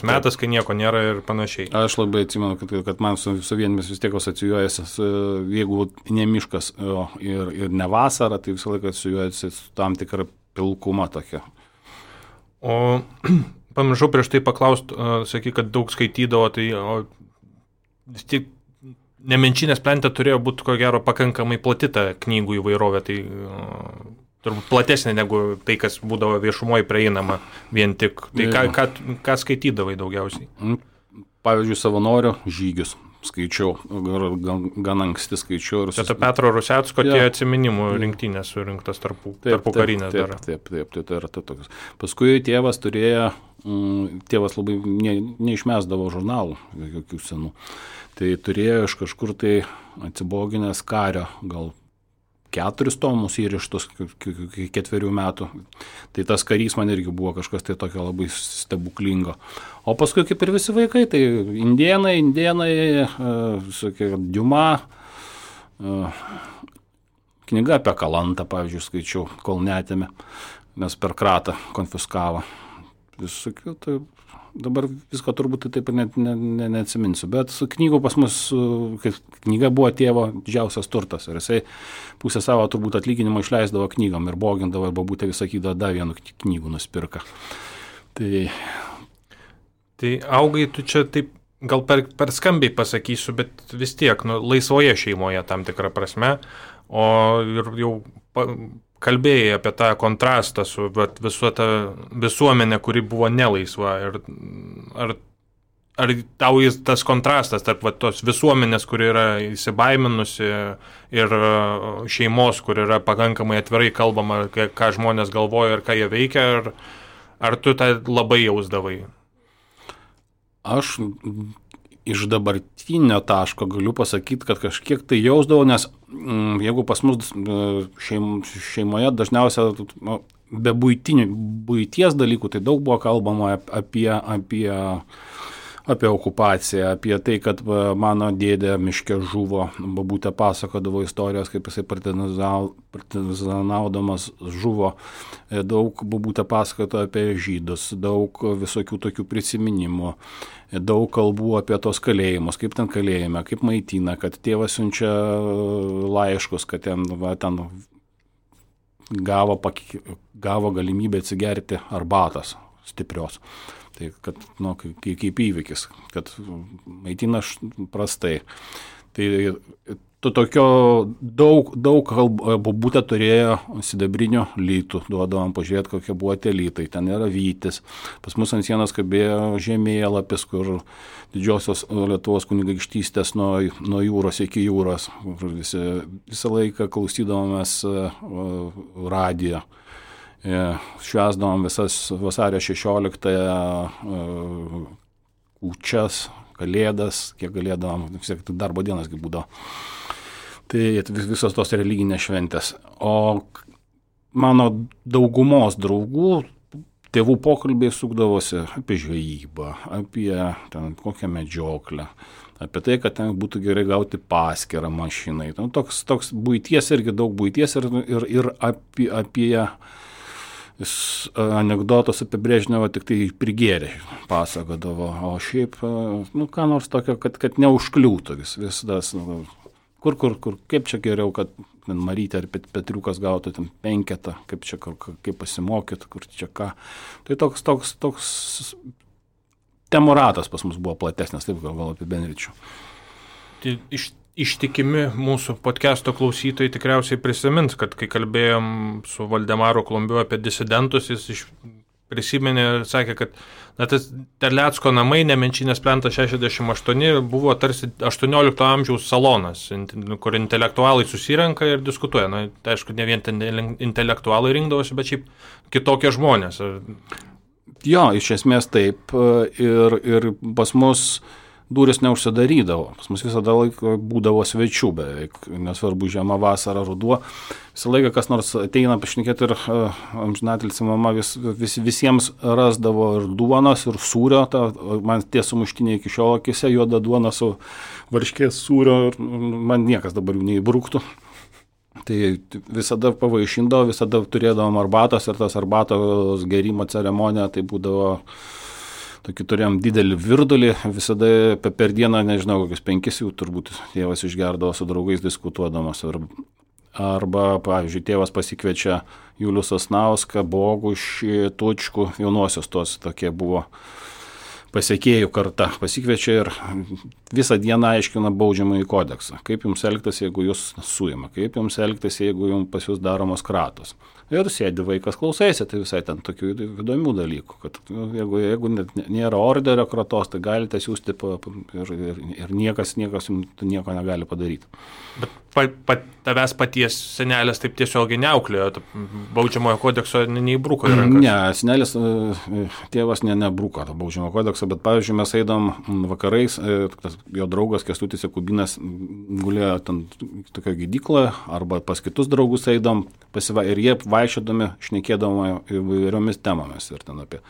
metas, kai nieko nėra ir panašiai. Aš labai atsimenu, kad man sovietmetis vis tiek asocijuojasi, jeigu ne miškas ir ne vasara, tai visą laiką asocijuojasi su tam tikra pilkuma tokia. O pamiršau prieš tai paklausti, sakai, kad daug skaitydavo, tai vis tik Nemenčinės plente turėjo būti, ko gero, pakankamai plati ta knygų įvairovė, tai turbūt platesnė negu tai, kas būdavo viešumoje prieinama vien tik. Tai ką skaitydavai daugiausiai? Pavyzdžiui, savanorių žygius skaičiau, gan anksti skaičiau. Čia ta Petro Rusecko tie atsiminimų rinktinės surinktas tarpu karinės dar. Taip, tai yra tokios. Paskui tėvas labai neišmesdavo žurnalų, jokių senų. Tai turėjo iš kažkur tai atsiboginęs kario, gal 4 tomus įrištus 4 metų. Tai tas karys man irgi buvo kažkas tai tokio labai stebuklingo. O paskui kaip ir visi vaikai, tai indėnai, Diuma, knyga apie Kalantą, pavyzdžiui, skaičiau, kol netėmė, nes per kratą konfiskavo. Visokių, tai dabar visko turbūt taip ir neatsiminsiu, bet knygų pas mus, kaip knyga buvo tėvo didžiausias turtas ir jisai pusę savo turbūt atlyginimo išleisdavo knygom ir bogindavo, arba būtų sakydavo, dar vienų knygų nuspirka. Tai augai tu čia taip, gal per skambiai pasakysiu, bet vis tiek, laisvoje šeimoje tam tikrą prasme, o ir jau kalbėjai apie tą kontrastą su visų tą visuomenę, kuri buvo nelaisva. Ar tau tas kontrastas tarp tos visuomenės, kuri yra įsibaiminusi, ir šeimos, kur yra pakankamai atvirai kalbama, ką žmonės galvoja ir ką jie veikia, ar tu tą labai jausdavai? Aš iš dabartinio taško galiu pasakyti, kad kažkiek tai jausdavau, nes jeigu pas mus šeimoje dažniausia be buities dalykų, tai daug buvo kalbama apie okupaciją, apie tai, kad mano dėdė miške žuvo, babutė pasakodavo istorijos, kaip jisai partizanaudamas žuvo, daug babutė pasakojo apie žydus, daug visokių tokių prisiminimų, daug kalbų apie tos kalėjimus, kaip ten kalėjime, kaip maitina, kad tėvas siunčia laiškus, kad ten gavo galimybę atsigerti arbatos stiprios. Tai kad, kaip įvykis, kad maitina prastai. Tai tokio daug babutė turėjo sidabrinių lytų, duodavom pažiūrėti, kokie buvo tie lytai. Ten yra vytis. Pas mus ant sienos kabėjo žemėlapis, kur didžiosios Lietuvos kunigaikštystės nuo jūros iki jūros. Visą laiką klausydavomės radijo. Švęsdavom visas vasario 16 kūčias, kalėdas, kiek galėdavom, darbo dienas kaip būdavo. Tai visos tos religinės šventės. O mano daugumos draugų, tėvų pokalbiai sukdavosi apie žvejybą, apie ten kokią medžioklę, apie tai, kad ten būtų gerai gauti paskirą mašinai. Toks buities, irgi daug buities ir apie Jis anekdotus apie Brežnevą tik tai prigėrė pasakodavo, o šiaip, ką nors tokio, kad neužkliūtų vis tas, kur, kaip čia geriau, kad Marytė ar Petriukas gautų ten 5, kaip pasimokyt, kur čia ką. Tai toks temų ratas pas mus buvo platesnis, taip gal apibendrinčiau. Tai ištikimi mūsų podcast'o klausytojai tikriausiai prisimins, kad kai kalbėjom su Valdemaru Klumbiu apie disidentus, jis prisiminė ir sakė, kad tas Terlecko namai, Nemenčinės plentas 68, buvo tarsi 18 amžiaus salonas, kur intelektualai susirenka ir diskutuoja. Tai aišku, ne vien intelektualai rinkdavosi, bet šiaip kitokie žmonės. Jo, iš esmės taip. Ir pas mus durys neužsidarydavo. Pas mus visada laiko būdavo svečių beveik, nesvarbu žiema, vasara, ruduo. Visą laiką kas nors ateina pašnekėti ir amžinatilsį mama visiems rasdavo ir duonos, ir sūrio. Man tie sumuštiniai iki šiol akise, juoda duona su varškės sūrio, ir man niekas dabar jų neįbruktų. Tai visada pavaišindavo, visada turėdavom arbatos ir tas arbatos gerimo ceremonija, tai būdavo tokį turėjom didelį virdulį, visada per dieną, nežinau, kokius 5 jų turbūt tėvas išgerdavo su draugais diskutuodamas. Arba, pavyzdžiui, tėvas pasikviečia Julių Sasnauską, Bogušį, Tučkų, jaunosios tos tokie buvo pasiekėjų karta. Pasikviečia ir visą dieną aiškina baudžiamąjį kodeksą. Kaip jums elgtis, jeigu jūs suima, kaip jums elgtis, jeigu jums pas jūs daromos kratos. Ir sėdi vaikas klausaisi, tai visai ten tokių įdomių dalykų, kad jeigu nėra orderio kratos, tai galite siūsti ir niekas nieko negali padaryti. Bet tavęs paties senelės taip tiesiogiai neauklėjo, baudžiamojo kodekso neįbruko į rankas? Ne, senelės tėvas nebruko to baudžiamojo kodekso, bet pavyzdžiui mes eidom vakarais, jo draugas Kęstutis Jakubinas gulėjo ten tokio gydykloje, arba pas kitus draugus eidom, ir jie vaikščiodami šnekėdavo įvairiomis temomis ir ten apie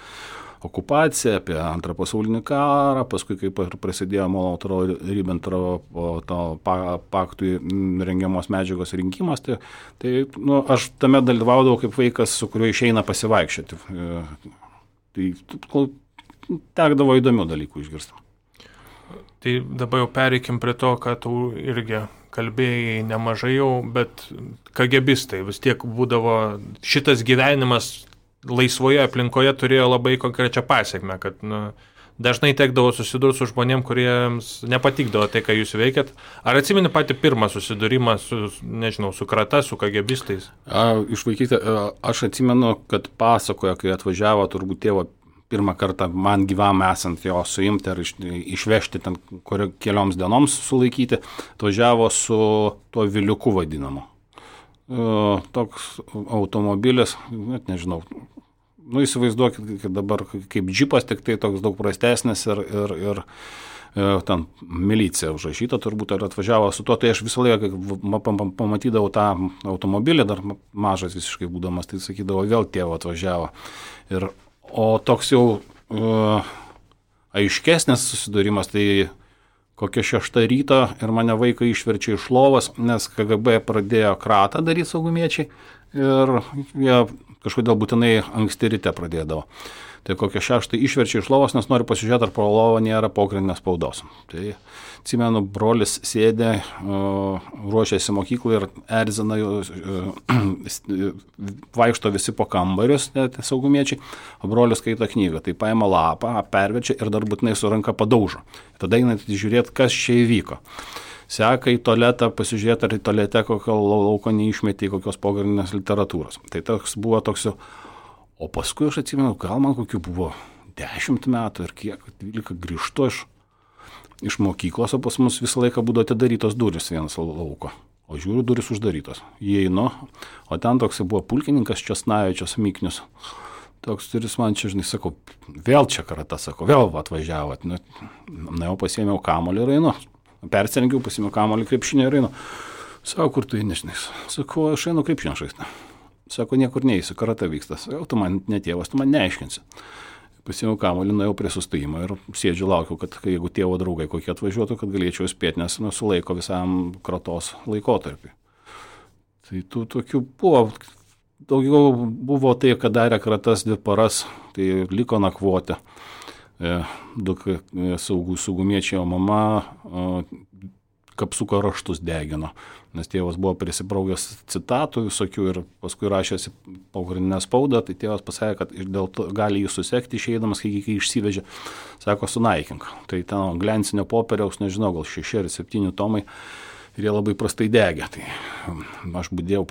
okupaciją, apie Antrą pasaulinį karą, paskui kaip prasidėjo Molotovo-Ribbentropo paktui rengiamos medžiagos rinkimas, tai aš tame dalyvaudavau kaip vaikas, su kuriuo išeina pasivaikščioti. Tai tekdavo įdomių dalykų išgirsti. Tai dabar jau pereikim prie to, kad tu irgi kalbėjai nemažai jau, bet KGBistai vis tiek būdavo, šitas gyvenimas laisvoje aplinkoje turėjo labai konkrečią pasiekmę, kad dažnai tekdavo susidurti su žmonėm, kuriems nepatikdavo tai, ką jūs veikėt. Ar atsimeni patį pirmą susidūrimą su krata, su KGBistais? Iš vaikystės aš atsimenu, kad pasakojo, kai atvažiavo turbūt tėvo pirmą kartą man gyvam esant jo suimti ar išvežti ten kelioms dienoms sulaikyti, atvažiavo su tuo viliuku vadinamu. Toks automobilis, net nežinau, įsivaizduokit, kad dabar kaip džipas, tik tai toks daug prastesnis ir ten milicija užrašyta turbūt, ar atvažiavo su tuo, tai aš visą laiką, kai pamatydavau tą automobilį, dar mažas visiškai būdamas, tai sakydavau, vėl tėvo atvažiavo. O toks jau aiškesnis susidūrimas, tai kokia 6 ryto ir mane vaiką išverčia iš lovos, nes KGB pradėjo kratą daryti saugumiečiai ir jie kažkodėl būtinai anksti ryte pradėdavo. Tai kokia 6 išverčia iš lovos, nes nori pasižiūrėti, ar po lovą nėra pogrindinės spaudos. Tai atsimenu, brolis sėdė, ruošėsi mokyklai ir erzina, vaikšto visi po kambarius, saugumiečiai, o brolis skaito knygą. Tai paima lapą, perverčia ir dar būtinai su ranka padaužo. Tada einat žiūrėti, kas čia įvyko. Seka į tualetą, pasižiūrėti, ar į tualete kokio lauko neišmetė kokios pogrindinės literatūros. Tai toks buvo toks jau. O paskui aš atsimenu, gal man kokių buvo 10 metų ir kiek, 12 grįžtu iš mokyklos, o pas mus visą laiką būdavo atidarytos durys vienas lauko. O žiūriu, durys uždarytos. Įeinu, o ten toks buvo pulkininkas Česnavičius Miknius. Toks turis man čia, žinai, sakau, vėl čia karata, sakau, vėl atvažiavo. Jau pasiėmiau kamuolį ir einu. Persirengiau, pasiėmiau kamuolį krepšinį ir einu. Sakau, kur tu eini, žinai? Sakau, aš einu krepšinio žaisti. Sako, niekur neįsiu, karata vyksta. Jau tu man netėvas, tu man neaiškinsi. Pasiėmiau kamuolį, nuėjau prie sustojimo ir sėdžiu, laukiu, kad jeigu tėvo draugai kokie atvažiuotų, kad galėčiau spėti, nes sulaiko visam kratos laikotarpį. Tai tų tokių buvo daugiau buvo tai, kad darė kratas 2 paras, tai liko nakvoti. 2 saugumiečiai, o mama kapsuko raštus degino, nes tėvas buvo prisibraugęs citatų visokių ir paskui rašėsi pogrindinę spaudą, tai tėvas pasakė, kad dėl to gali jį susekti išeidamas, kai išsivežė, sako, sunaikink. Tai ten glencinio popieriaus, nežinau, gal 6 ar 7 tomai ir jie labai prastai degė. Tai aš budėjau,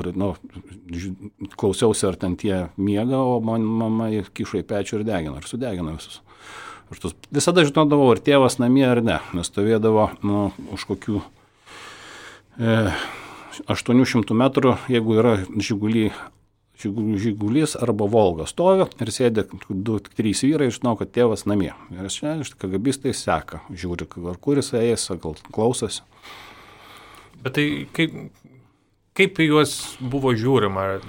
klausiausi, ar ten tie miega, o mama kišo į pečių ir degino, ir sudegino visus. Visada žinodavau, ar tėvas namie ar ne, nes stovėdavo už kokių 800 metrų, jeigu yra žigulys arba Volga stovi ir sėdė 2-3 vyrai, žinau, kad tėvas namie. Ir čia KGBistai seka, žiūri, ar kuris eis, gal klausosi. Bet tai kaip į juos buvo žiūrima?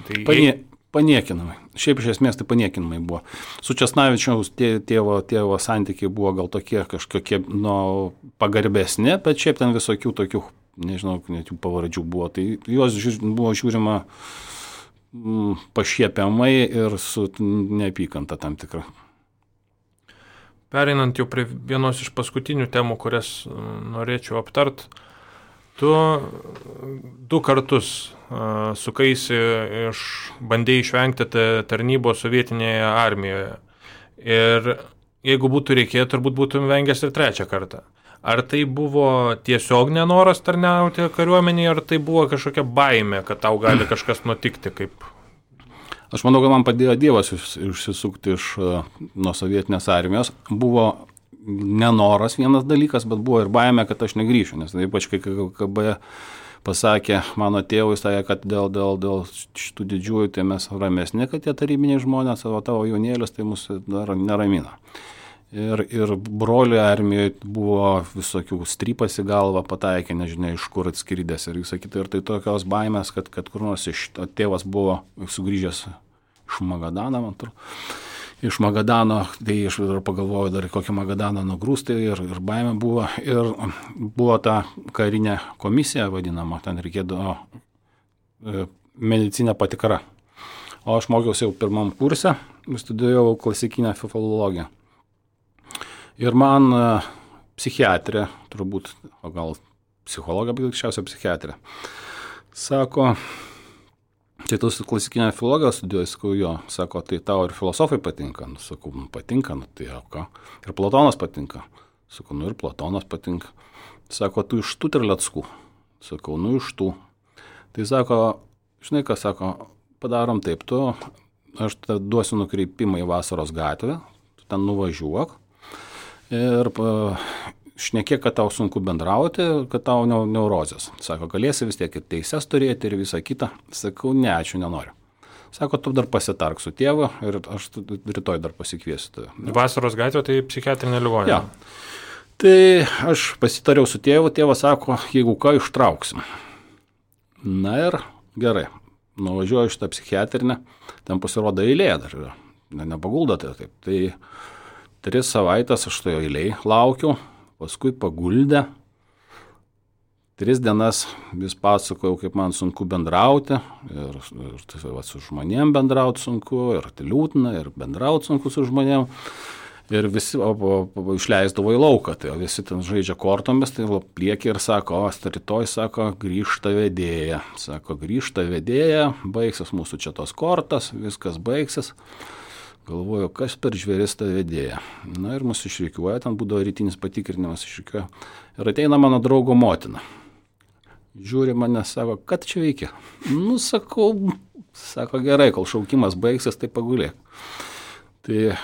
Paniekinamai. Šiaip iš esmės tai paniekinamai buvo. Su Česnavičiaus tėvo santykiai buvo gal tokie kažkokie pagarbesni, bet šiaip ten visokių tokių, nežinau, net jų pavardžių buvo. Tai juos buvo žiūrima pašiepiamai ir su neapykanta tam tikra. Pereinant jau prie vienos iš paskutinių temų, kurias norėčiau aptart, tu 2 kartus sukaisi bandėjai išvengti tarnybos sovietinėje armijoje. Ir jeigu būtų reikėję, turbūt būtum vengęs ir 3 kartą. Ar tai buvo tiesiog nenoras tarnauti kariuomenėje, ar tai buvo kažkokia baimė, kad tau gali kažkas nutikti? Aš manau, kad man padėjo Dievas išsisukti nuo sovietinės armijos. Buvo nenoras vienas dalykas, bet buvo ir baimė, kad aš negrįšiu, nes ypač kai KGB pasakė mano tėvui, sakė, kad dėl šitų didžiųjų tai mes ramesni, kad tie tarybiniai žmonės, o tavo jaunėlis tai mus dar neramina. Ir brolių armijoje buvo visokių strypas į galvą, pataikė, nežinia, iš kur atskridęs ir visą kitą. Ir tai tokios baimės, kad kur nors tėvas buvo sugrįžęs iš Magadano, man atrodo. Iš Magadano, tai aš pagalvojau dar kokią Magadaną nugrūsti ir baimė buvo. Ir buvo ta karinė komisija vadinama, ten reikėdavo medicinę patikrą. O aš mokiausi jau 1 kurse, studijavau klasikinę filologiją. Ir man psichiatrė, turbūt, o gal psichologija, bet greičiausiai psichiatrė, sako, tai tu klasikinę filologiją studijuoji, sakau, jo, sako, tai tau ir filosofai patinka, sakau, patinka, tai jau ką, ir Platonas patinka, sakau, ir Platonas patinka, sako, tu iš tų Terleckų, sakau, iš tų, tai sako, žinai ką, sako, padarom taip, aš duosiu nukreipimą į Vasaros gatvę, tu ten nuvažiuok ir šnekėk, kad tau sunku bendrauti, kad tau neurozės. Sako, galėsi vis tiek ir teises turėti ir visą kitą. Sakau, ne, ačiū, nenoriu. Sako, tu dar pasitark su tėvu ir aš rytoj dar pasikviesiu tave. Vasaros gatvė tai psichiatrinė ligoninė. Ja. Tai aš pasitariau su tėvu, tėvas sako, jeigu ką, ištrauksim. Na ir gerai, nuvažiuoju šitą psichiatrinę, ten pasirodo eilė dar yra, nepaguldo tai taip. Tai 3 savaitės aš toje eilėje laukiau, paskui paguldė. 3 dienas vis pasakojau, kaip man sunku bendrauti, ir su žmonėm bendrauti sunku, ir liūdna, ir bendrauti sunku su žmonėm. Ir visi išleisdavo į lauką, tai visi ten žaidžia kortomis, tai pliekė ir sako, rytoj, sako, grįžta vedėja. Sako, grįžta vedėja, baigsis mūsų čia tos kortas, viskas baigsis. Galvoju, kas per žvėris ta vedėja. Na ir mus išrikiuoja, ten būdavo rytinis patikrinimas išrikiuoja. Ir ateina mano draugo motina. Žiūri mane, sako, kad čia veikia? Sako, gerai, kol šaukimas baigsis, tai pagulėk. Tai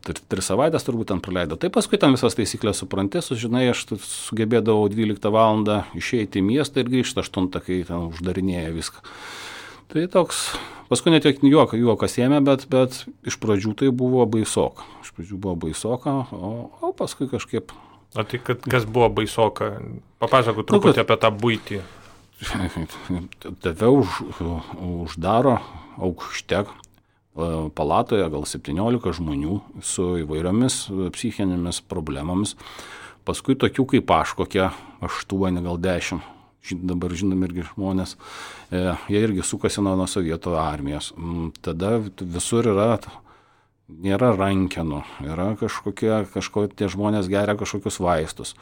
3 savaitės turbūt ten praleido. Tai paskui ten visas taisyklės supranti, sužinai, aš sugebėdavau 12 valandą išeiti į miestą ir grįžti 8, kai ten uždarinėja viską. Tai toks, paskui net juokas ėmė, bet iš pradžių tai buvo baisoka. O paskui kažkaip. O tai kas buvo baisoka? Papasakok truputį apie tą buitį. Tave uždaro aukšte palatoje gal 17 žmonių su įvairiomis psichinėmis problemomis. Paskui tokių kaip aš, kokie 8, gal 10. dabar žinomi irgi žmonės, jie irgi sukasi nuo sovietų armijos. Tada visur nėra rankenų, yra kažkokie tie žmonės geria kažkokius vaistus.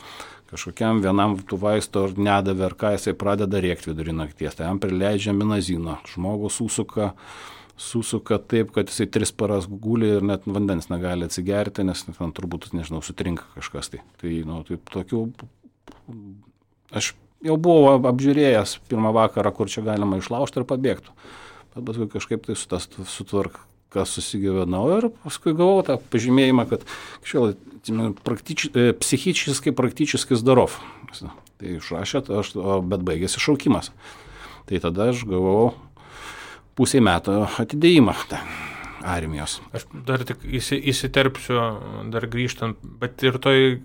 Kažkokiam vienam tų vaistų ar nedavė, ar ką jisai pradeda rėkti vidurį nakties, tai jam prileidžia minazino. Žmogus susuka taip, kad jisai 3 paras guli ir net vandens negali atsigerti, nes ten turbūt, nežinau, sutrinka kažkas. Tai tokių, aš jau buvau apžiūrėjęs pirmą vakarą, kur čia galima išlaužti ir pabėgti. Bet paskui kažkaip tai sutvarka, kas susigyvenau ir paskui gavau tą pažymėjimą, kad psichiškai praktiškai zdarov. Tai išrašė, bet baigėsi šaukimas. Tai tada aš gavau pusę metų atidėjimą armijos. Aš dar tik įsiterpsiu, dar grįžtant, bet ir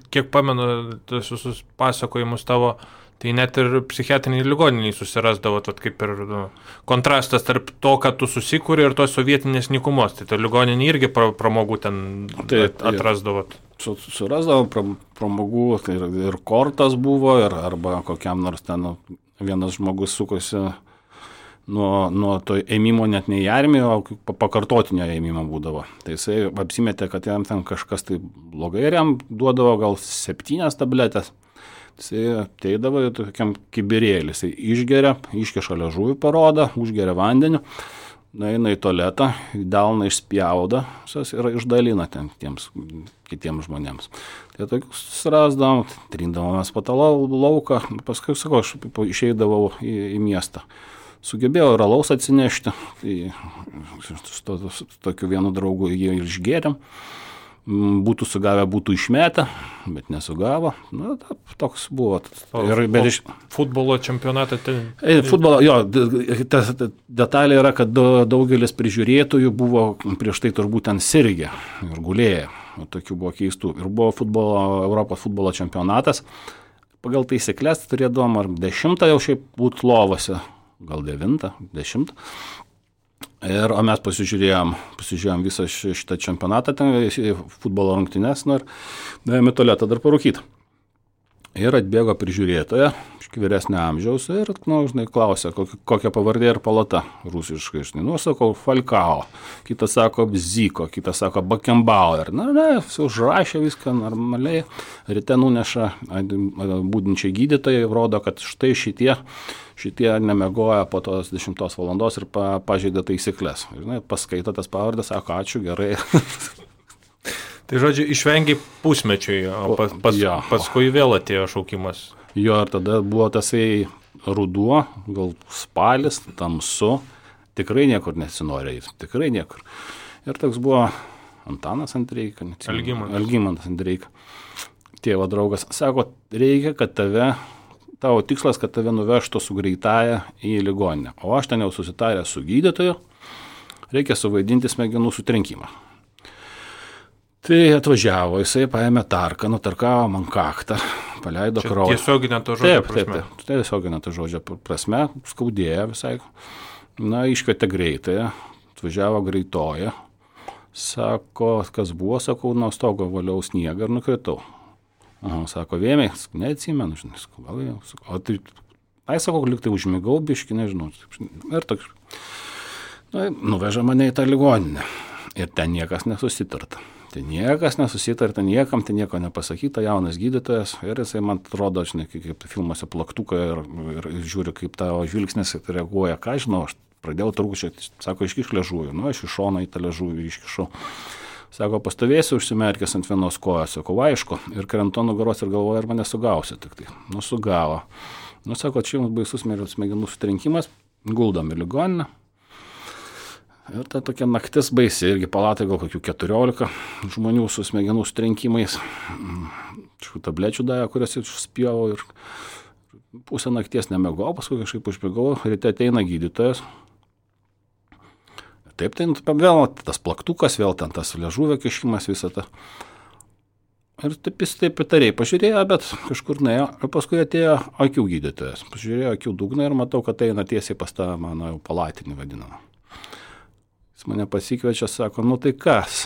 kiek pamenu, tas visus pasakojimus tavo, tai net ir psichiatriniai ligoniniai susirasdavo, kaip ir kontrastas tarp to, kad tu susikūrė ir tos sovietinės nykumos. Tai ta ligoninė irgi pramogų ten atrasdavo. Surasdavo pramogų, tai ir kortas buvo, arba kokiam nors ten vienas žmogus sukosi nuo to ėmimo net ne į armiją, o pakartotinio ėmimo būdavo. Tai jisai apsimetė, kad jam ten kažkas tai blogai ir jam duodavo gal 7 tabletės. Jisai ateidavo tokiam kibirėlį, jisai išgeria, iškeša liežuvį parodą, užgeria vandeniu, nueina į tualetą, delną išspjauda ir išdalina ten kitiems žmonėms. Tai tokius surasdavom, trindavomės po tą lauką, paskui, sakau, aš išeidavau į miestą. Sugebėjau ir alaus atsinešti, tai su tokiu vienu draugu jie išgėrėm. Būtų sugavę, būtų išmetę, bet nesugavo. Toks buvo. Futbolo čempionatą futbolo, ta detalė yra, kad daugelis prižiūrėtojų buvo prieš tai turbūt ten sirgę ir gulėję. Tokių buvo keistų. Ir buvo Europos futbolo čempionatas. Pagal taisyklės turėdavom ar 10 jau šiaip būt lovose, gal 9, 10. O mes pasižiūrėjom visą šitą čempionatą, futbolo rungtynes, ir nuėjome į tualetą dar parūkyti. Ir atbėgo prižiūrėtoja, vyresnio amžiaus, ir, klausė, kokia pavardė ir palata rusiškai. Sakau, Falcao, kitas sako Bziko, kitas sako Beckenbauer. Užrašė viską normaliai, ryte nuneša būdinčiai gydytojai, rodo, kad štai šitie nemiegoja po tos 10 valandos ir pažeidė taisyklės. Paskaito tas pavardes, sako, ačiū, gerai. Tai žodžiu, išvengiai pusmečiai, o paskui vėl atėjo šaukimas. Jo, ir tada buvo tasai ruduo, gal spalis, tamsu, tikrai niekur nesinori eiti, tikrai niekur. Ir toks buvo Antanas Andreika, Algimantas Andreika, tėvo draugas, sako, reikia, kad tavo tikslas, kad tave nuvežtų su greitaja į ligoninę. O aš ten jau susitarę su gydytoju, reikia suvaidinti smegenų sutrenkimą. Tai atvažiavo, jisai paėmė tarką, nutarkavo man kaktą, paleido kraują. Tiesioginė to žodžio prasme. Taip, tiesioginė to žodžio prasme, skaudėjo visai. Iškvietė greitąją, atvažiavo greitoja, sako, kas buvo, sakau, nuo stogo valiau sniegą ir nukritau. Sako, vėmiai, neatsimenu, gal jau. O tai, sakau, liktai užmigau, biškį, nežinau. Ir toks, nuveža mane į tą ligoninę. Ir ten niekas nesusitarta. Niekam, ten nieko nepasakyta, jaunas gydytojas. Ir jisai man atrodo, kaip filmuose plaktuką ir žiūri, kaip tavo žvilgsnis reaguoja. Ką žinau, aš pradėjau trūkčioti, sako, iškiš liežuvį. Aš iš šono į tą liežuvį iškišau. Sako, pastovėsiu užsimerkęs ant vienos kojos. Sako, aišku, ir krentu nugaros ir galvoju, ar mane sugausi tik tai. Sugavo. Sako, čia jums baisus smegenų sutrenkimas, guldom į ligoninę. Ir ta tokia naktis baisi, irgi palatai gal kokių 14 žmonių su smegenų sutrenkimais. Tablečių davė, kurias išspjovau ir pusę nakties nemegau, paskui kažkaip užmigau, ryte ateina gydytojas. Taip, tai vėl tas plaktukas, vėl ten tas liežuvio kišimas, visą tą. Ir taip jis taip įtariai pažiūrėjo, bet kažkur nuėjo. Ir paskui atėjo akių gydytojas. Pažiūrėjo akių dugną ir matau, kad eina tiesiai pas tą mano jau palatinį vadinamą. Jis mane pasikviečia, sako, tai kas?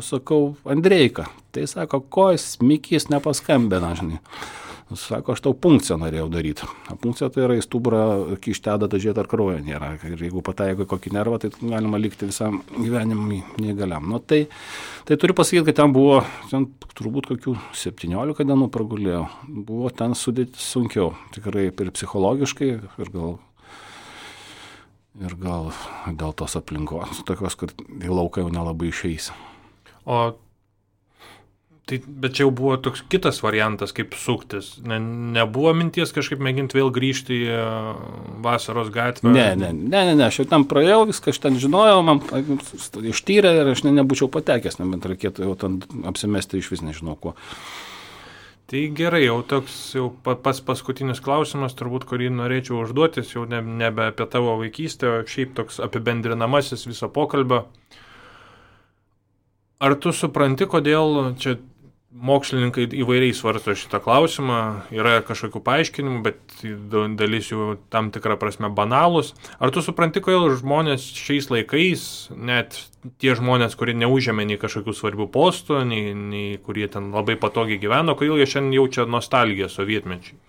Sakau, Andreika. Tai sako, ko jis Mikis nepaskambina, žinai. Sako, aš tau punkciją norėjau daryti. O punkcija tai yra į stuburą kišti adatą, žiūrėti, ar kraujo nėra. Ir jeigu pataiko į kokį nervą, tai galima likti visam gyvenimui neįgaliam. Nu, tai turiu pasakyti, kad ten buvo, turbūt kokių 17 dienų pragulėjau. Buvo ten sunkiau, tikrai ir psichologiškai, ir gal dėl tos aplinkos, tokios, kur į lauką jau nelabai išeisi. Bet čia jau buvo toks kitas variantas, kaip suktis. Nebuvo minties kažkaip mėginti vėl grįžti į Vasaros gatvę? Ne, aš jau ten praėjau, viską aš ten žinojau, man ištyrė ir aš nebūčiau patekęs, nebent reikėtų jau ten apsimesti iš vis nežinau kuo. Tai gerai, jau toks pats paskutinis klausimas, turbūt, kurį norėčiau užduotis, jau nebe apie tavo vaikystę, o šiaip toks apibendrinamasis viso pokalbio. Ar tu supranti, kodėl čia mokslininkai įvairiai svarsto šitą klausimą, yra kažkokių paaiškinimų, bet dalis jų tam tikrą prasme banalus. Ar tu supranti, kodėl žmonės šiais laikais, net tie žmonės, kurie neužėmė nei kažkokių svarbių postų, nei kurie ten labai patogiai gyveno, kodėl jie šiandien jaučia nostalgiją sovietmečiai?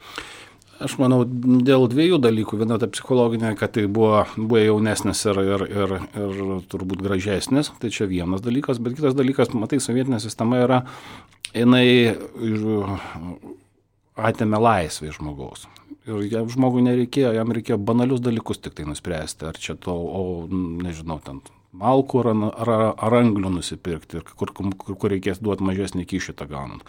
Aš manau, dėl dviejų dalykų. Viena ta psichologinė, kad tai buvo jaunesnis ir turbūt gražesnis. Tai čia vienas dalykas, bet kitas dalykas, matai, sovietinė sistema yra, jinai atėmė laisvę žmogaus. Ir žmogui nereikėjo, jam reikėjo banalius dalykus tik tai nuspręsti. Ar čia nežinau, ten malkų ar anglių nusipirkti, kur reikės duoti mažesnį kyšį tą gaunant.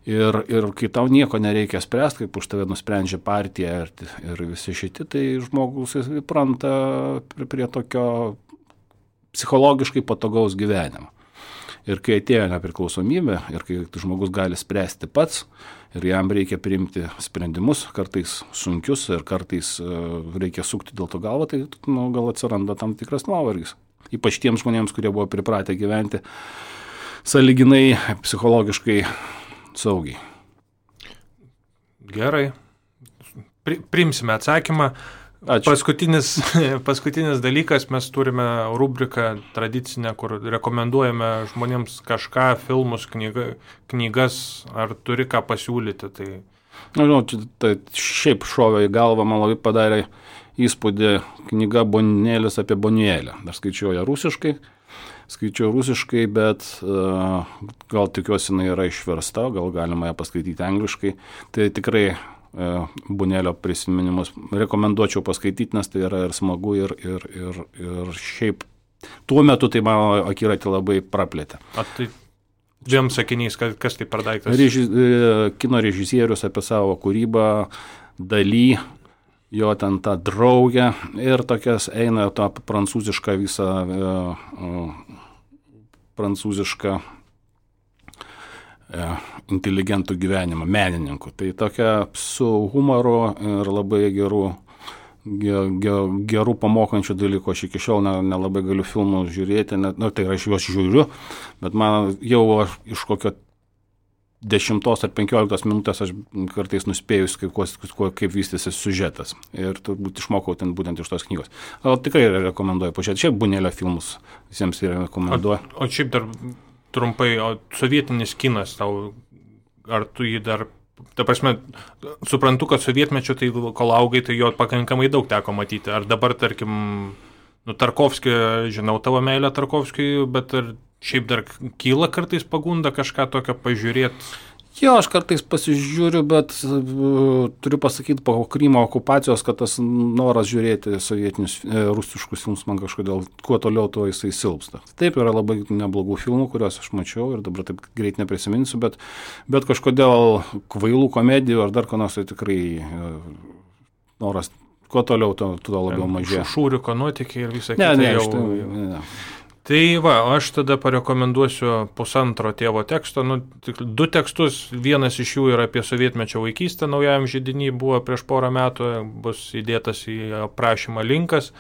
Ir kai tau nieko nereikia spręsti, kaip už tave nusprendžia partija ir visi šiti, tai žmogus įpranta prie tokio psichologiškai patogaus gyvenimo. Ir kai atėjo nepriklausomybė, ir kai žmogus gali spręsti pats, ir jam reikia priimti sprendimus, kartais sunkius, ir kartais reikia sukti dėl to galvą, tai gal atsiranda tam tikras nuovargis. Ypač tiems žmonėms, kurie buvo pripratę gyventi sąlyginai psichologiškai saugiai. Gerai. Priimsime atsakymą. Ačiū. Paskutinis dalykas, mes turime rubriką tradicinę, kur rekomenduojame žmonėms kažką, filmus, knygas, ar turi ką pasiūlyti. Tai šiaip šovė į galvą, man labai padarė įspūdį knyga Bonėlis apie Bonėlę. Aš skaičiau ją rusiškai, bet gal tikiuosi jinai yra išversta, gal galima ją paskaityti angliškai. Tai tikrai Bonėlio prisiminimus rekomenduočiau paskaityti, nes tai yra ir smagu, ir šiaip tuo metu tai mano akiratį labai praplėtė. Tai dviem sakiniais, kas tai per daiktas? Kino režisierius apie savo kūrybą, Daly, jo ten tą draugę ir tokias eina tą prancūzišką visą prancūzišką inteligentų gyvenimą, menininkų. Tai tokia su humoru ir labai gerų pamokančių dalykų. Aš iki šiol nelabai galiu filmų žiūrėti, tai aš juos žiūriu, bet man jau iš kokio 10 ar 15 minutės aš kartais nuspėjus, kaip vystysi siužetas. Ir turbūt išmokau ten būtent iš tos knygos. Tikrai rekomenduoju pažiūrėti. Šiaip Bonėlio filmus visiems rekomenduoju. O šiaip dar trumpai, sovietinis kinas tau, ar tu jį dar, ta prasme, suprantu, kad sovietmečio, tai kol augai, tai jo pakankamai daug teko matyti. Ar dabar, tarkim, Tarkovskį, žinau tavo meilę Tarkovskiui, bet ar šiaip dar kyla kartais pagunda kažką tokio pažiūrėti? Jo, aš kartais pasižiūriu, bet turiu pasakyti po Krymo okupacijos, kad tas noras žiūrėti sovietinius rusiškus filmus man kažkodėl kuo toliau, tuo jisai silpsta. Taip, yra labai neblogų filmų, kuriuos aš mačiau ir dabar taip greit neprisiminsiu, bet kažkodėl kvailų komedijų ar dar ko nors, tai tikrai noras kuo toliau, tuo labiau mažėja. Šūriuko nuotykiai ir visą kitą jau. Ne. Tai aš tada parekomenduosiu pusantro tėvo teksto, 2 tekstus, vienas iš jų yra apie sovietmečio vaikystę, naujajam židiny buvo prieš porą metų, bus įdėtas į aprašymą linkas,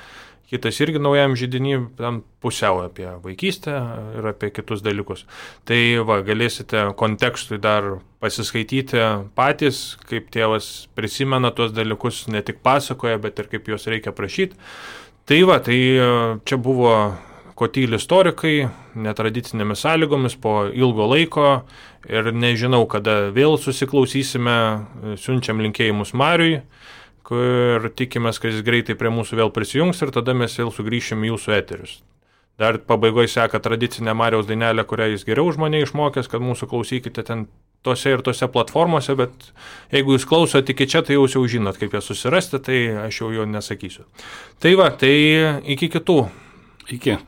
kitas irgi naujajam židiny, ten pusiau apie vaikystę ir apie kitus dalykus. Tai galėsite kontekstui dar pasiskaityti patys, kaip tėvas prisimena tuos dalykus, ne tik pasakoja, bet ir kaip juos reikia prašyti. Tai čia buvo ko tyli istorikai, netradicinėmis sąlygomis, po ilgo laiko ir nežinau, kada vėl susiklausysime, siunčiam linkėjimus Mariui, kur tikimės, kad jis greitai prie mūsų vėl prisijungs ir tada mes vėl sugrįšim į jūsų eterius. Dar pabaigoje seka tradicinė Mariaus dainelė, kurią jis geriau už mane išmokęs, kad mūsų klausykite ten tose ir tose platformose, bet jeigu jūs klausote iki čia, tai jau žinot, kaip ją susirasti, tai aš jau jo nesakysiu. Tai va, tai iki kitų. Iki.